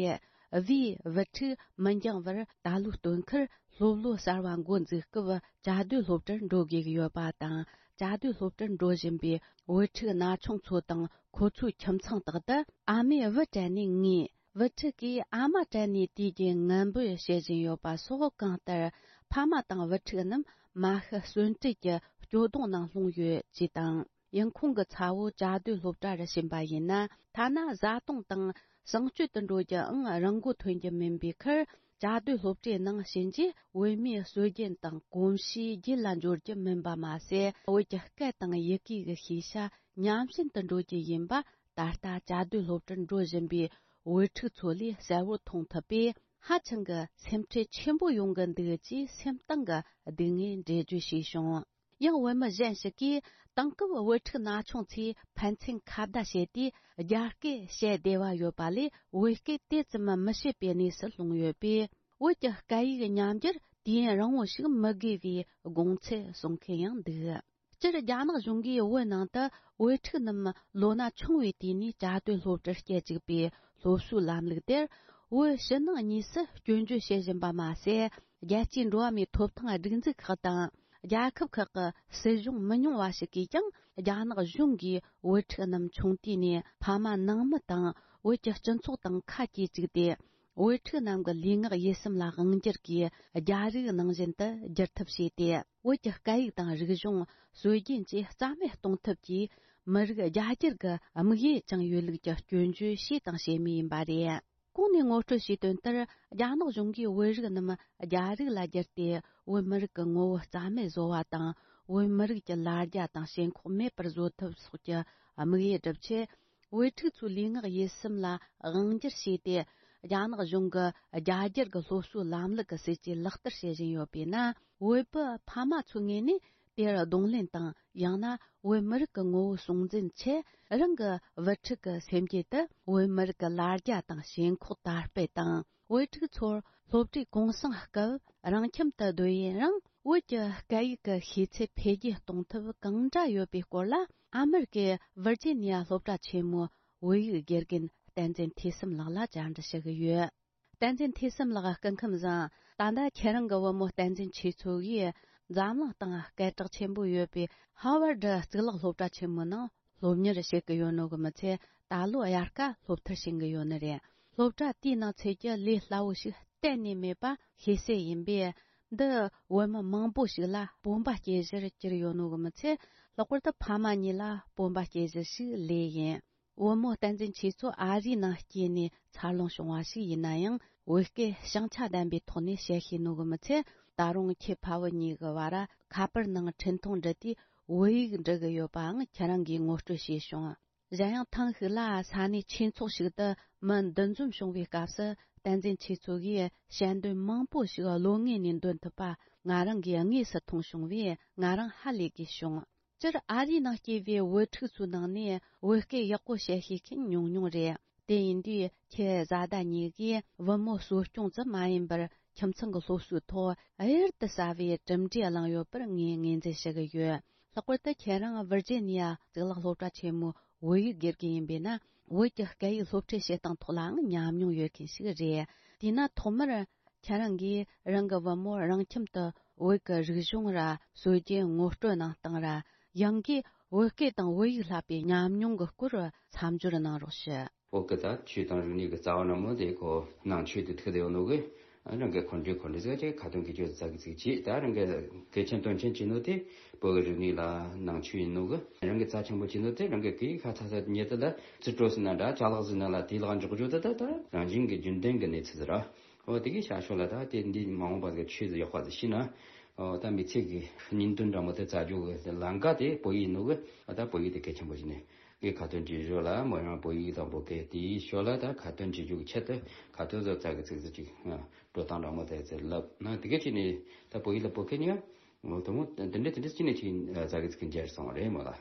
བིའི་བུ་ཕྲུག་མི་འགྱངས་བར་ད་ལོའི་སྟོན་ཁར་སློབ་ལོ་གསར་བ་འགོ་འཛུགས་སྐབས་བཅའ་སྡོད་སློབ་གྲྭར་འགྲོ་དགོས་ཀྱི་ཡོད་པ་དང་། བཅའ་སྡོད་སློབ་གྲྭར་འགྲོ་བཞིན་པའི་བུ་ཕྲུག་ན་ཆུང་ཚོ་དང་ཁོ་ཚོའི་ཁྱིམ་ཚང་དག་ཏུ་ཨ་མས་བུ་སྤྲད་ནས་ངུས། བུ་ཕྲུག་གིས་ཨ་མ་སྤྲད་ནས་དུས་རྒྱུན་ངན་འབོད་བྱེད་བཞིན་ཡོད་པ་སོགས། གང་ལྟར་ཕ་མ་དང་བུ་ཕྲུག་རྣམས་མ་ཤི་གསོན་བྲལ་གྱི་སྐྱོ་གདུང་ནང་ལྷུང་ཡོད་ཅེས་དང་། ཡང་ཁོང་གི་ཚ་བོ་བཅའ་སྡོད་སློབ་གྲྭ་རུ་ཕྱིན་པ་ཡིན་ན། ཐ་ན་བཟའ་བཏུང་དང་གསང་སྤྱོད་དུ་འགྲོ་རྒྱུའང་རང་མགོ་ཐོན་རྒྱུ་མིན་པའི་ཁར། བཅའ་སྡོད་སློབ་གྲྭའི་ནང་ཕྱིན་རྗེས་བོད་མིའི་སྲོལ་རྒྱུན་དང་གོམས་གཤིས་རྒྱུད་ལ་འབྱོར་རྒྱུ་མིན་པ་མ་ཟད། བོད་ཀྱི་སྐད་དང་ཡི་གེ་གི་ཤེས་བྱ་ཉམས་ཞན་དུ་འགྲོ་རྒྱུ་ཡིན་པ། ད་ལྟ་བཅའ་སྡོད་སློབ་གྲྭར་འགྲོ་བཞིན་པའི་བུ་ཕྲུག་ཚོ་ལས་གསལ་བོར་མཐོང་ཐུབ་པས། ཧ་ཅང་གི་སེམས་ཁྲལ་ཆེན་པོ་ཡོང་གི་འདུག་ཅེས་སེམས་གཏིང་གི་སྡུག་བསྔལ་འགྲེལ་བརྗོད་བྱས་བྱུང་། ཡང་བོད་མི་གཞན་ཞིག་གིས་དེང་སྐབས་བུ་ཕྲུག་ན་ཆུང་ཚོས་ཕན་ཚུན་ཁ་བརྡ་བྱས་ཏེ་རྒྱ་སྐད་བཤད་བདེ་བ་ཡོད་པ་ལས། བོད་སྐད་དེ་ཙམ་མི་བཤད་པའི་གནས་སུ་ལྷུང་ཡོད་པས། བོད་ཀྱི་སྐད་ཡིག་ཉམས་འགྱུར་དུས་ཡུན་རིང་བོ་ཞིག་མི་དགོས་པའི་དགོངས་ཚུལ་གསུང་མཁན་ཡང་འདུག་སྤྱིར་རྒྱ་ནག་གཞུང་གིས་བོད་ནང་དུ་བུ་ཕྲུག་རྣམས་ལོ་ན་ཆུང་བའི་དུས་ནས་བཅའ་སྡོད་སློབ་གྲྭར་སྐྱེལ་བཅུག་པའི་སློབ་གསོའི་ལམ་ལུགས་དེར། བོད་ཕྱི་ནང་གཉིས་སུ་སྐྱོན་བརྗོད་བྱེད་བཞིན་པ་མ་ཟད། རྒྱལ་སྤྱིའི་འགྲོ་བ་མིའི་ཐོབ་ཐང་སྒྲིག་འཛུགས་ཁག་དང་། རྒྱལ་ཁབ་ཁག་གི་སྲིད་གཞུང་མི་ཉུང་བ་ཞིག་གིས་ཀྱང་། རྒྱ་ནག་གཞུང་གིས་བུ་ཕྲུག་རྣམས་ཆུང་དུས་ནས་ཕ་མ་ནང་མི་དང་བོད་ཀྱི་སྤྱི་ཚོགས་དང་ཁ་གྱེས་བཅུག་སྟེ། བུ་ཕྲུག་རྣམས་ཀྱི་ལུས་ངག་ཡིད་གསུམ་ལ་དབང་སྒྱུར་གྱིས། རྒྱ་རིགས་ནང་བཞིན་དུ་བསྒྱུར་ཐབས་བྱས་ཏེ། བོད་ཀྱི་སྐད་ཡིག་དང་རིག་གཞུང་། སྲོལ་རྒྱུན་བཅས་རྩ་མེད་གཏོང་ཐབས་ཀྱིས། མི་རིགས་རྒྱ་སྒྱུར་གྱི་དམིགས་ཡུལ་བཅངས་ཡོད་ལུགས་ཀྱི་སྐྱོན་བརྗོད་བྱས་དང་བྱེད་མུས་ཡིན་པ་རེད། གོང་ནས་ངོ་སྤྲོད་བྱས་དོན་ལྟར། རྒྱ་ནག་གཞུང་གིས་བོད་རིགས་རྣམས་རྒྱ་རིགས་ལ་བསྒྱུར་ཏེ། བོད་མི་རིགས་ཀྱི་ངོ་བོ་རྩ་མེད་བཟོ་བ་དང་། བོད་མི་རིགས་ཀྱི་ལ་རྒྱ་དང་ཞེན་ཁོག་མེད་པར་བཟོ་ཐབས་སོགས་ཀྱི་དམིགས་ཡུལ་བསྒྲུབ་ཆེད། བོད་ཕྲུག་ཚོའི་ལུས་ངག་ཡིད་གསུམ་ལ་དབང་སྒྱུར་བྱས་ཏེ། རྒྱ་ནག་གཞུང་གི་རྒྱ་སྒྱུར་གྱི་སློབ་གསོའི་ལམ་ལུགས་ཀྱི་སྲིད་ཇུས་ལག་བསྟར་བྱེད་བཞིན་ཡོད་པས་ན། བོད་པའི་ཕ་མ་ཚོའི་ངོས་ནས་དེར་གདོང་ལེན་དང་། ཡང་ན་བོད་མི་རིགས་ཀྱི་ངོ་བོ་སྲུང་འཛིན་ཆེད། རང་གི་བུ་ཕྲུག་གི་སེམས་རྒྱུད་དུ་བོད་མི་རིགས་ཀྱི་ལ་རྒྱ་དང་ཞེན་ཁོག་དར་སྤེལ་དང་། བོད་ཕྲུག་ཚོར་སློབ་གྲྭའི་གུང་སེང་སྐབས་རང་ཁྱིམ་དུ་སྡོད་ཡུན་རིང་། བོད་ཀྱི་སྐད་ཡིག་གི་ཤེས་ཚད་འཕེལ་རྒྱས་གཏོང་ཐབས་གང་འདྲ་ཡོད་པའི་སྐོར་ལ། ཨ་མེ་རི་ཀའི་ཝིར་ཇི་ནི་ཡ་སློབ་གྲྭ་ཆེན་མོའི་བོད་ཡིག་དགེ་རྒན་བསྟན་འཛིན་ཐོས་བསམ་ལགས་ལ་བཅར་འདྲི་ཞུ་གི་ཡོད། བསྟན་འཛིན་ཐོས་བསམ་ལགས། སྐུ་ཁམས་བཟང་། ད་ལྟ་ཁྱེད་རང་གི་བུ་མོ་བསྟན་འཛིན་ཆོས་མཚོ་གིས་འཛམ་གླིང་སྟེང་སྐད་གྲགས་ཆེན་པོ་ཡོད་པའི་ཧ་ཝར་ཌི་གཙུག་ལག་སློབ་གྲྭ་ཆེན་མོའི་ནང་སློབ་གཉེར་བྱེད་ཀྱི་ཡོད་ནོ་གི་མི་ཚད། ད་ལོ་དབྱར་ཁ་སློབ་མཐར་ཕྱིན་གྱི་ཡོད་ནི་རེད། སློབ་གྲྭ་དེའི་ནང་ཚུད་རྒྱུ་ལས་སླ་བོ་ཞིག་གཏན་ནས་མེད་པ་ཤེས་གསལ་ཡིན་པས། འདི་བུ་མོ་མང་པོ་ཞིག་ལ་སྤོབས་པ་སྐྱེ་གཞིར་གྱུར་ཡོད་ནོ་གི་མི་ཚད། ལྷག་པར་དུ་ཕ་མ་གཉིས་ལ་སྤོབས་པ་སྐྱེ་གཞི་ཞིག་ལོས་ཡིན། བུ་མོ་བསྟན་འཛིན་ཆོས་མཚོ་ཨ་རིའི་ནང་སྐྱེས་ནས་འཚར་ལོངས་བྱུང་བ་ཞིག་ཡིན་ན་ཡང་། བོད་སྐད་ཞང་ཆ་ལྡན་པའི་ཐོག་ནས་བཤད་ཤེས་ནོ་གི་མི་ཚད། ད་རུང་ཁྱེད་ཕ་བུ་གཉིས་ཀྱི་བར་ཁ་པར་ནང་འཕྲིན་ཐུང་འབྲི་དུས་བོད་ཡིག་འབྲི་གི་ཡོད་པའང་ཁྱེད་རང་གིས་ངོ་སྤྲོད་བྱས་བྱུང་། གཞན་ཡང་ཐེངས་ཤིག་ལ་ས་གནས་ཆོས་ཚོགས་ཤིག་ཏུ་མི་འདུ་འཛོམས་བྱུང་བའི་སྐབས་སུ། བསྟན་འཛིན་ཆོས་མཚོ་གིས་དཔྱད་འདོན་མང་པོ་ཞིག་བློ་ངོས་ནས་འདོན་ཐུབ་པ་ང་རང་གིས་དངོས་སུ་མཐོང་བྱུང་བས། ང་རང་ཧ་ལས་དགོས་བྱུང་། སྤྱིར་ཨ་རིའི་ནང་སྐྱེས་པའི་བུ་ཕྲུག་ཚོའི་ནང་ནས་བོད་སྐད་ཡག་པོ་བཤད་ཤེས་མཁན་ཉུང་ཉུང་རེད། དེ་ཡིན་དུས་ཁྱེད་བཟའ་ཟླ་གཉིས་ཀྱིས་བུ་མོ་གསོ་སྐྱོང་ཙམ་མ་ཡིན་པར། ཁྱིམ་ཚང་གི་སློབ་གསོའི་ཐོག་གཡུར་དུ་ཟ་བའི་གྲུབ་འབྲས་བླངས་ཡོད་པར་ངས་ངོས་འཛིན་ཞུ་གི་ཡོད། ལྷག་པར་དུ་ཁྱེད་རང་ཝིར་ཇི་ནི་ཡ་གཙུག་ལག་སློབ་གྲྭ་ཆེན་མོའི་བོད་ཡིག་དགེ་རྒན་ཡིན་པས་ན། བོད་ཀྱི་སྐད་ཡིག་སློབ་ཁྲིད་བྱེད་སྟངས་ཐོག་ལའང་ཉམས་མྱོང་ཡོད་མཁན་ཞིག་རེད། དེས་ན་ཐོག་མར། ཁྱེད་རང་གིས་རང་གི་བུ་མོར་རང་ཁྱིམ་དུ་བོད་ཀྱི་རིག་གཞུང་ར་སྲོལ་རྒྱུན་ངོ་སྤྲོད་གནང་སྟངས་ར། ཡང་སྒོས་བོད་སྐད་དང་བོད་ཡིག་བསླབ་པའི་ཉམས་མྱོང་གི་སྐོར་མཚམས་སྦྱོར་གནང་རོགས་ཞུ། བོད་སྐད་དང་ཆོས་དང་རིག་གནས་ཀྱི་རྩ་བ་ནས་མོ་དེ་ཁོ་ནང་ཆོས་དེ་ཐུག་དེ་ཡོད་ནོ་གི། རང་གི་འཁོན་འགྲས་འཁོན་འགྲས་ཟེར་ཅིག་ཁ་ཏོན་གི་ཅོ་ཙ་གི་ཚིག་ཅིག་ད་རང་གི་གལ་ཆེན་དོན་ཆེན་བྱེད་ནོ་དེ་བོད་ཀྱི་རིག་གནས་ལ་ནང་ཆོས་ཡིན་ནོ་གི། རང་གི་རྩ་ཆེན་པོ་བྱེད་ནོ་དེ་རང་གི་གི་ཁ་ཚ་ཚ་ཉེ་དུ་ལ་རྩིས་སྤྲོད་ཟིན་ན་འདྲ་ཅ་ལག་ཟིན་ན་ལ་དེ་ལག་འཇོག་རྒྱུ་དེ་ད་ད་རང་བཞིན་གྱི་རྒྱུན་ལྡན་གྱི་གནས་ཚུལ་ར། འོ་དེ་གའི་ཤ་ཤོ་ལ་ད་དེ་འདི་མ་འོངས་པ་གི་ཆོས་ཟིག་ཡག་པ་ཟིག་ཤེས་ན། འོ་ད་མི་ཚེ་གི་སྙིང་དོན་འདྲ་མོ་དེ་རྩ་རྒྱུ་གི་ལམ་ཀ་དེ་བོད་ཡིག་ནོ་གི། ཨ་ད་བོད་ཡིག་དེ་གལ་ཆེན་པོ་ཞིག་ནས་གི་ཁ་ཏོན་བྱེད་ཞོར་ལ་མོ་རང་བོད་ཡིག་དང་བོད་སྐད་དེའི་ཞོར་ལ་ད་ཁ་ཏོན་བྱེད་རྒྱུ་གི་ཆེད་དུ་ཁ་ཏོན་བཟོ་རྩ་གི་ཚིག་ཟིག་ཅིག་འགྲོ་སྟངས་འདྲ་མོ་དེ་ཚེ་ལབ་ན་དེ་གའི་ཅི་ནས་ད་བོད་ཡིག་ལ་བོད་སྐད་ཉིད་འོ་དེ་མོ་དེ་འདྲ་དེ་འདྲ་ཅི་ནས་ཅིག་རྩ་གི་ཚིག་འཇལ་སོང་བ་རེད་མོ་ལ།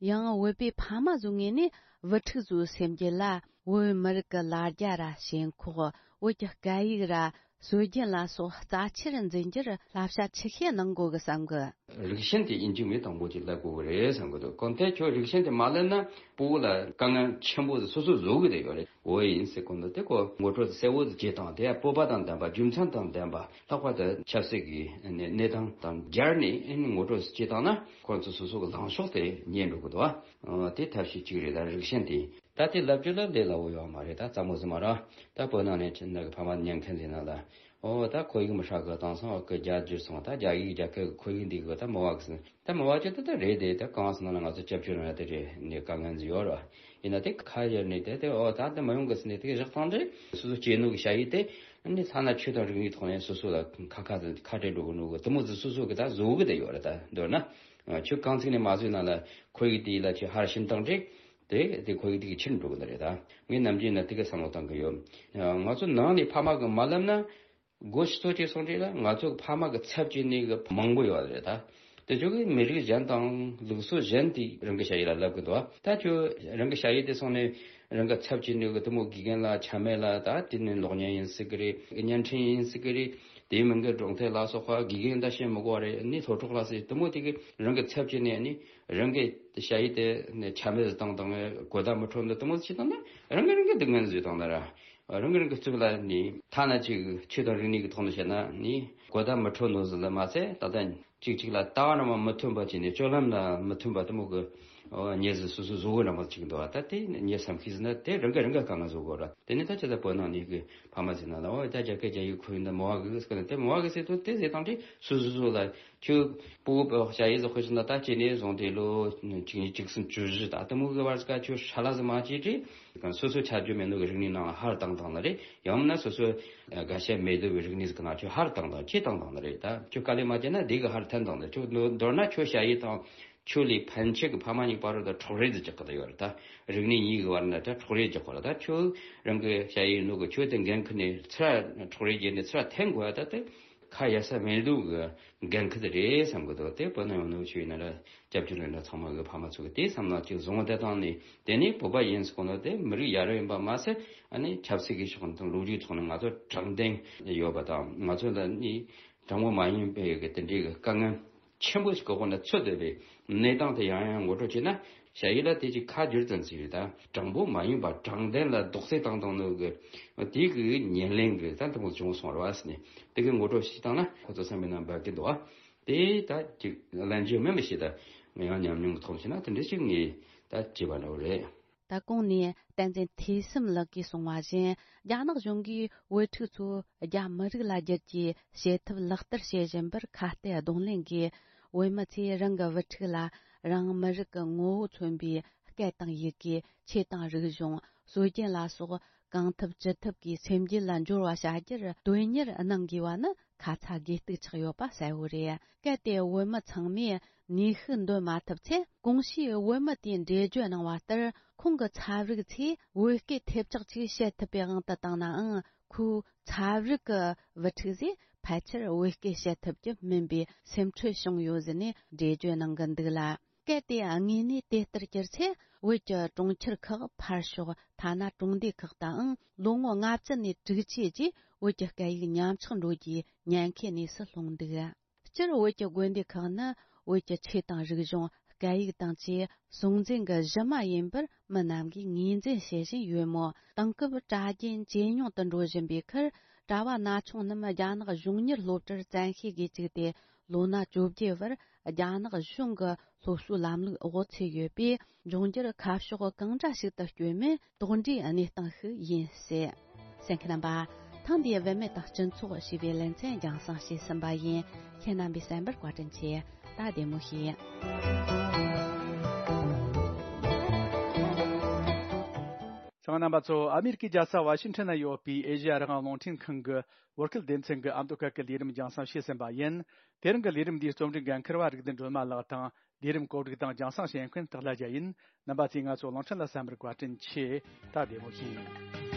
ཡང་བོད་པའི་ཕ་མ་ཚོའི་ངོས་ནས་བུ་ཕྲུག་ཚོའི་སེམས་རྒྱུད་ལ་བོད་མི་རིགས་ཀྱི་ལ་རྒྱ་ར་ཞེན་ཁོག་བོད་ཀྱི་སྐད་ཡིག་ར་སྲོལ་རྒྱུན་ལ་སོགས་རྩ་ཆེར་འཛིན་རྒྱུར་བསླབ་བྱ་ཆེ་ཤོས་གནང་དགོས་ཀྱི་བསམ་གི། རིགས་ཞེན་དེ་ཡིན་གཅིག་མིན་དང་པོ་ཅིག་སླེབས་དགོས་ཀྱི་རེད་བསམ་གི་འདུག་གང་ལྟར་ཁྱོད་རིགས་ཞེན་དེ་མ་སླེབས་ན་སྤུ་གུ་ལ་དཀའ་ངལ་ཆེན་པོ་དེ་སོ་སོས་བཟོ་གི་དེ་ཡོད་རེད། འོ་ཡིན་ཟེར་གོ་འདུག་དེ་ཁོ་ངོ་སྤྲོད་གསལ་བོ་དེ་བྱེད་སྟངས་དེ་སྤོབས་པ་དང་ལྡན་པ། རྒྱུ་མཚན་དང་ལྡན་པ། ལྷག་པར་དུ་ཆབ་སྲིད་ཀྱི་གནས་སྟངས་དང་སྦྱར་ནས་ངོ་སྤྲོད་བྱེད་སྟངས་ན་ཁོ་ཚོ་སོ་སོ་གི་ལངས་ཕྱོགས་དེ་རྙེད་འགྲོ་གི་འདུག་ཨ་དེ་ཐབས་ཤེས་གཅིག་རེད། ད་རིགས་ཞེན་དེ་ད་དེ་ལབ་རྒྱུ་ལ་ལས་སླ་བོ་ཡོད་མ་རེད། ད་རྩ་མོ་ཟིན་མ་ར་ད་བོད་ནང་ནས་ཁྱེད་ནང་གི་ཕ་མ་ཉན་མཁན་ཟིན་ན་ལ། ཨོ་ད་ཁོར་ཡུག་མི་ཧྲ་གི། དེང་སང་གི་རྒྱ་བསྒྱུར་སོང་། ད་རྒྱ་ཡིག་རྒྱ་སྐད་ཁོར་ཡུག་འདི་གི་ད་མི་བ་གི་ཟིན། ད་མི་བ་ཅི་ད་ད་རེད་དེ། ད་གང་ཟིན་ན་ང་ཚོ་སྐྱབས་བཅོལ་ནང་ཡ་དེ་རེད། ནས་དཀའ་ངལ་ཟིན་ཡོད་ར། ཡིན་ན་དེ་ཁ་ཡར་ནས་དེ་དེ་ཨོ་ད་ད་མི་ཡོང་གི་ཟིན་ནས་དེ་གི་བཞག་སྟངས་དེ་སོ་སོ་སྐྱེས་ནོ་གི་ཞ་ཡི་དེ་ནི་ཐ་ན་ཆོས་དང་རིག་གནས་ཐོག་ནས་སོ་སོ་ལ་ཁ་ཁ་ཁ་བྲལ་འགྲོ་གི་ནོ་གི་དེ་མོ་ཟིན་སོ་སོ་གི་ད་བཟོ་གི་དེ་ཡོད་ར། ད་མདོར་ན་ཆོས་གང་ཚིག་ནས་མ་བཟོས་ན་ལ་ཁོར་ཡུག་དེ་ལ་ཆོས་ཧར་ཕྱིན་སྟངས་དེ། དེ་དེ་ཁོར་ཡུག་དེ་གི་ཕྱིར་འགྲོ་གི་ནི་རེད། ད་ངས་ནམ་རྒྱུན་ན་དེ་གི་བསམ་བློ་བཏང་གི་ཡོད། ང་ཚོ་ནང་ནས་ཕ་མ་གི་མ་ལབ་ན་སྒོ་ཕྱི་ཚོ་ཅིག་སོང་རེད་ལ། ང་ཚོ་གི་ཕ་མ་གི་ཚབ་བྱས་ནས་གི་མང་པོ་ཡོད་རེད། ད་དེ་ཚོ་གི་མི་རིགས་གཞན་དང་ལུགས་སྲོལ་གཞན་དེ་རང་གི་ཞ་ཡི་ལ་ལབ་གི་འདུག་ད་ཁྱོད་རང་གི་ཞ་ཡི་དེ་སོང་ནས་རང་གི་ཚབ་བྱས་ནས་གི་དེ་མོ་དགེ་རྒན་ལ་ཆ་མེད་ལ། ད་དེ་ནས་གློག་བརྙན་ཡིན་སྲིད་གི་རེད། བརྙན་འཕྲིན་ཡིན་སྲིད་གི་རེད། དེའི་མིང་གི་སྒྲུང་དེབ་ལ་སོགས་པ། དགེ་རྒན་ད་བཤད་མི་དགོས་པ་རེད། ནི་སློབ་གྲོགས་ལ་སྲིད་དེ་མོ་དེ་གི་རང་གི་ཚབ་བྱས་ནས་ནི། རང་གི་ཞ་ཡི་དེ་ནས་ཆ་མེད་བཏང་དང་། གོ་བརྡ་མི་འཕྲོད་འདི་དེ་མོ་ཞིག་བཏང་ན་རང་གི་རང་གི་སྡུག་བསྔལ་བཟོས་བཏང་ན་ར། རང་གི་རང་གི་གཙུག་ལ་ནི་ཐ་ན་ཅིག་ཆོས་དང་རིག་གནས་ཀྱི་ཐོག་ནས་བཤད་ན་ནི་གོ་བརྡ་མི་འཕྲོད་ནོ་ཟིག་ལ་མ་ཚད། ད་ལྟ་ཅིག་ཅིག་ལ་ལྟ་བ་རང་མ་མི་མཐུན་པ་བྱས་ནས་སྤྱོད་ལམ་ལ་མི་མཐུན་པ་དེ་མོ་གི་ཉེས་ཟིག་སོ་སོ་བཟོ་གི་རང་མ་ཅིག་འདུག་ད་དེ་ཉེས་བསམ་ཤེས་ཟིན་ན་དེ་རང་གི་རང་གི་དཀའ་ངལ་བཟོ་དགོས་ར། དེ་ནི་ད་ཅི་ད་བོད་ནང་ནས་གི་ཕ་མ་ཟིན་ན་ལ་འོ་ད་རྒྱ་སྐད་རྒྱ་ཡིག་ཁོ་ཡིན་ད་མོ་བ་གི་ཟེར་གི་ན། དེ་མོ་བ་གི་ཟེར་དུས་དེ་ཟེར་དང་དེ་སོ་སོ་སོ་ལ། ཁྱོད་སྤུ་གུ་ཞ་ཡི་ཟོ་ཁོ་ཤི་ན་ད་ཁྱེད་ནས་བཟུང་སྟེ་ལོ་གཅིག་གཉིས་གཅིག་གསུམ་བཅུ་བཞི་ད་དེ་མོ་གི་བར་ག་ཁྱོད་ཧྲ་ལ་ཟི་མ་བྱེད་དྲི། སོ་སོ་ཆ་རྒྱུས་མེད་ནོ་གི་རིག་གནས་ནང་ཧར་བཏང་བཏང་ནི་རེད། ཡང་མིན་ན་སོ་སོ་དགའ་ཤས་མེད་དོ་བའི་རིག་གནས་ཟིག་ནང་ཁྱོད་ཧར་བཏང་བཏང་ཁྱེད་བཏང་བཏང་ནི་རེད། ད་ཁྱོད་དཀའ་ལས་མ་བྱས་ན་དེ་གི་ཧར་འཐེན་བཏང་ནི་རེད། ཁྱོད་མདོར་ན་ཁྱོད་ཞ་ཡི་དང་ཁྱོད་ལས་ཕན་ཆད་གི་ཕ་མ་གཉིས་བར་དུ་འཕྲོག་རེས་ཟིག་རྒྱག་གི་ད་ཡོད་རེད། ད་རིག་གནས་གཉིས་གི་བར་ན་ད་འཕྲོག་རེས་རྒྱག་གི་རེད། ད་ཁྱོད་རང་གི་ཞ་ཡི་ནོ་གི་ཁྱོད་དེ་འགན་ཁུར་ནས་ཚུར་འཕྲོག་རེས་བརྒྱབ་ནས་ཚུར་འཐེན་དགོས་ད་དེ། ཁ་ཡ་ས་མེད་འདུག་གི་འགན་ཁུར་དེ་རེད་བསམ་གི་འདུག་དེ་བོད་ནང་ཡོང་ནོ་ཆོས་ཡིན་ན་ར་སྐྱབས་བཅོལ་ཡིན་ན་ཚང་མ་གི་ཕ་མ་ཚོ་གི་དེ་བསམ་བློ་གཅིག་བཟུང་བ་དེ་བཏང་ནས། དེ་ནས་བོད་པ་ཡིན་ཟེར་གོ་ནོ་དེ་མི་རིགས་ཡ་རབས་ཡིན་པ་མ་ཟད། ཨ་ནི་ཆབ་སྲིད་ཀྱི་ཕྱོགས་ནས་དང་ལོ་རྒྱུས་ཐོག་ནས་ང་ཚོ་དྲང་བདེན་ཡོད་པ་དང་། ང་ཚོ་ལ་ནི་དྲང་པོ་མ་ཡིན་པའི་གི་དེ་འདྲའི་གི་དཀའ་ངལ་ཆེན་པོ་ཞིག་གི་འོག་ནས་ཚུད་བསྡད་པའི་གནས་སྟངས་དེ་ཡང་ཡང་ངོ་སྤྲོད་བྱས་ན། ཞ་ཡི་ལ་དེ་ཅིག་ཁ་བསྒྱུར་ཙམ་ཞིག་རེད། ད་དྲང་པོ་མ་ཡིན་པ་དྲང་བདེན་ལ་རྡོག་རྫིས་བཏང་བཏང་ནོ་གི་དེ་གི་ཉེར་ལེན་གི་ད་དེ་མོ་བྱུང་སོང་ར་བ་ཟེར་ནས་དེ་གི་ངོ་སྤྲོད་ཞིག་བཏང་ན་ཁོ་ཚོ་བསམ་པའི་ནང་འབབ་ཀྱི་འདུག་ཨ། དེ་ད་ཅིག་ལན་རྒྱུ་མིན་པ་ཞིག་ད་ང་ཡང་ཉམས་མྱོང་གི་ཐོག་བྱས་ན་དེ་འདྲ་ཞིག་ངས་ད་བྱས་པ་འདྲ་བོ་རེད། ད་གོང་ནས་བསྟན་འཛིན་ཐོས་བསམ་ལགས་ཀྱིས་གསུངས་པ་བཞིན། རྒྱ་ནག་གཞུང་གིས་བོད་ཕྲུག་ཚོ་རྒྱ་མི་རིགས་ལ་བསྒྱུར་རྒྱུའི་བྱེད་ཐབས་ལག་བསྟར་བྱེད་བཞིན་པར་ཁ་གཏད་གདོང་ལེན་གྱིས། བོད་མི་ཚོས་རང་གི་བུ་ཕྲུག་ལ་རང་མི་རིགས་ཀྱི་ངོ་བོ་མཚོན་པའི་སྐད་དང་ཡི་གེ། ཆོས་དང་རིག་གཞུང་། སྲོལ་རྒྱུན་ལ་སོགས་གང་ཐུབ་ཅི་ཐུབ་ཀྱིས་སེམས་རྒྱུད་ལ་འབྱོར་བ་བྱ་རྒྱུར་དོན་གཉེར་གནང་དགོས་པ་ནི་ཁ་ཚ་དགོས་གཏུགས་ཆགས་ཡོད་པ་གསལ་བོ་རེད། གལ་ཏེ་བོད་མི་ཚང་མས་ནུས་ཤུགས་འདོན་མ་ཐུབ་ཚེ། གོང་ཞུས་བོད་མི་དེས་འགྲེལ་བརྗོད་གནང་བ་ལྟར། ཁོང་གི་ཚབ་རིགས་ཚོས་བོད་སྐད་ཐེབས་ཆག་ཅིག་བཤད་ཐུབ་པའི་དབང་དུ་བཏང་ནའང་། ཁོའི་ཚབ་རིགས་ཀྱི་བུ་ཕྲུག་ཚོས་ཕལ་ཆེར་བོད་སྐད་བཤད་ཐུབ་རྒྱུ་མིན་པའི་སེམས་ཁྲལ་བྱུང་ཡོད་ཟེར་ནས་འགྲེལ་བརྗོད་གནང་གི་འདུག་ལ། གལ་ཏེ་དངོས་གནས་དེ་ལྟར་གྱུར་ཚེ། བོད་ཀྱི་གྲོང་ཁྱེར་ཁག་ཕར་ཞོག་ཐ་ན་གྲོང་སྡེ་ཁག་དང་ལོ་ངོ་ལྔ་བཅུ་ནས་དྲུག་ཅུའི་རྗེས་བོད་ཀྱི་སྐད་ཡིག་ཉམས་ཆག་འགྲོ་རྒྱུའི་ཉེན་ཁའི་གནས་སུ་ལྷུང་འདུག་སྤྱིར་བོད་ཀྱི་དགོན་སྡེ་ཁག་ནི་བོད་ཀྱི་ཆོས་དང་རིག་གཞུང་། སྐད་ཡིག་དང་བཅས་སྲོང་བཙན་གྱི་གཞི་མ་ཡིན་པར་མི་རྣམས་ཀྱིས་ངོས་འཛིན་བྱེད་བཞིན་ཡོད་མོད། དེང་སྐབས་གྲྭ་རྒྱུན་ཇེ་ཉུང་དུ་འགྲོ་བཞིན་པའི་ཁར། གྲྭ་བ་ན་ཆུང་རྣམས་རྒྱ་ནག་གཞུང་གཉེར་སློབ་གྲྭར་བཙན་ཤེད་ཀྱིས་བཅུག་སྟེ། ལོ་ན་བཅོ་བརྒྱད་བར་རྒྱ་ནག་གཞུང་གི་སློབ་གསོའི་ལམ་ལུགས་འོག་ཚུད་ཡོད་པས། འབྱུང་འགྱུར་ཁ་ཕྱོགས་གང་འདྲ་ཞིག་ཏུ་བསྐྱོད་མིན་དོགས་འདྲིའི་གནས་སྟངས་ཤིག་ཡིན་སྲིད། གསན་མཁན་རྣམ་པ། ཐེངས་འདིའི་བུད་མེད་དང་སྤྱི་ཚོགས་ཞེས་པའི་ལེ་ཚན་རྒྱང་སྲིང་བྱས་ཟིན་པ་ཡིན། ཁྱེད་རྣམ་པས་གསན་པར་བཀའ་དྲིན་ཆེ། ད་བདེ་མོ་བྱོས། ཚང་རྣམ་པ་ཚོ། ཨ་མེ་རི་ཀའི་རྒྱལ་ས་ཝ་ཤིང་ཊོན་ན་ཡོད་པའི་ཨེ་ཤེ་ཡ་རང་དབང་རླུང་འཕྲིན་ཁང་གི་བོད་སྐད་སྡེ་ཚན་གྱི་ཨ་མདོ་སྐད་ཀྱི་ལས་རིམ་རྒྱང་སྲིང་བྱས་ཟིན་པ་ཡིན། དེ་རིང་གི་ལས་རིམ་འདིའི་རྩོམ་སྒྲིག་འགན་འཁུར་བ་རིག་ལྡན་སྒྲོལ་མ་ལགས་དང་། ལས་རིམ་གོ་སྒྲིག་དང་རྒྱང་སྲིང་བྱེད་མཁན་སྟག་ལྷ་རྒྱལ་ཡིན། རྣམ་པ་ཚོས་ང་ཚོ་གླིང་ཕྲན་ལ་གསན་པར་བཀའ་དྲིན་ཆེ། ད་བདེ་མོ་བྱོས།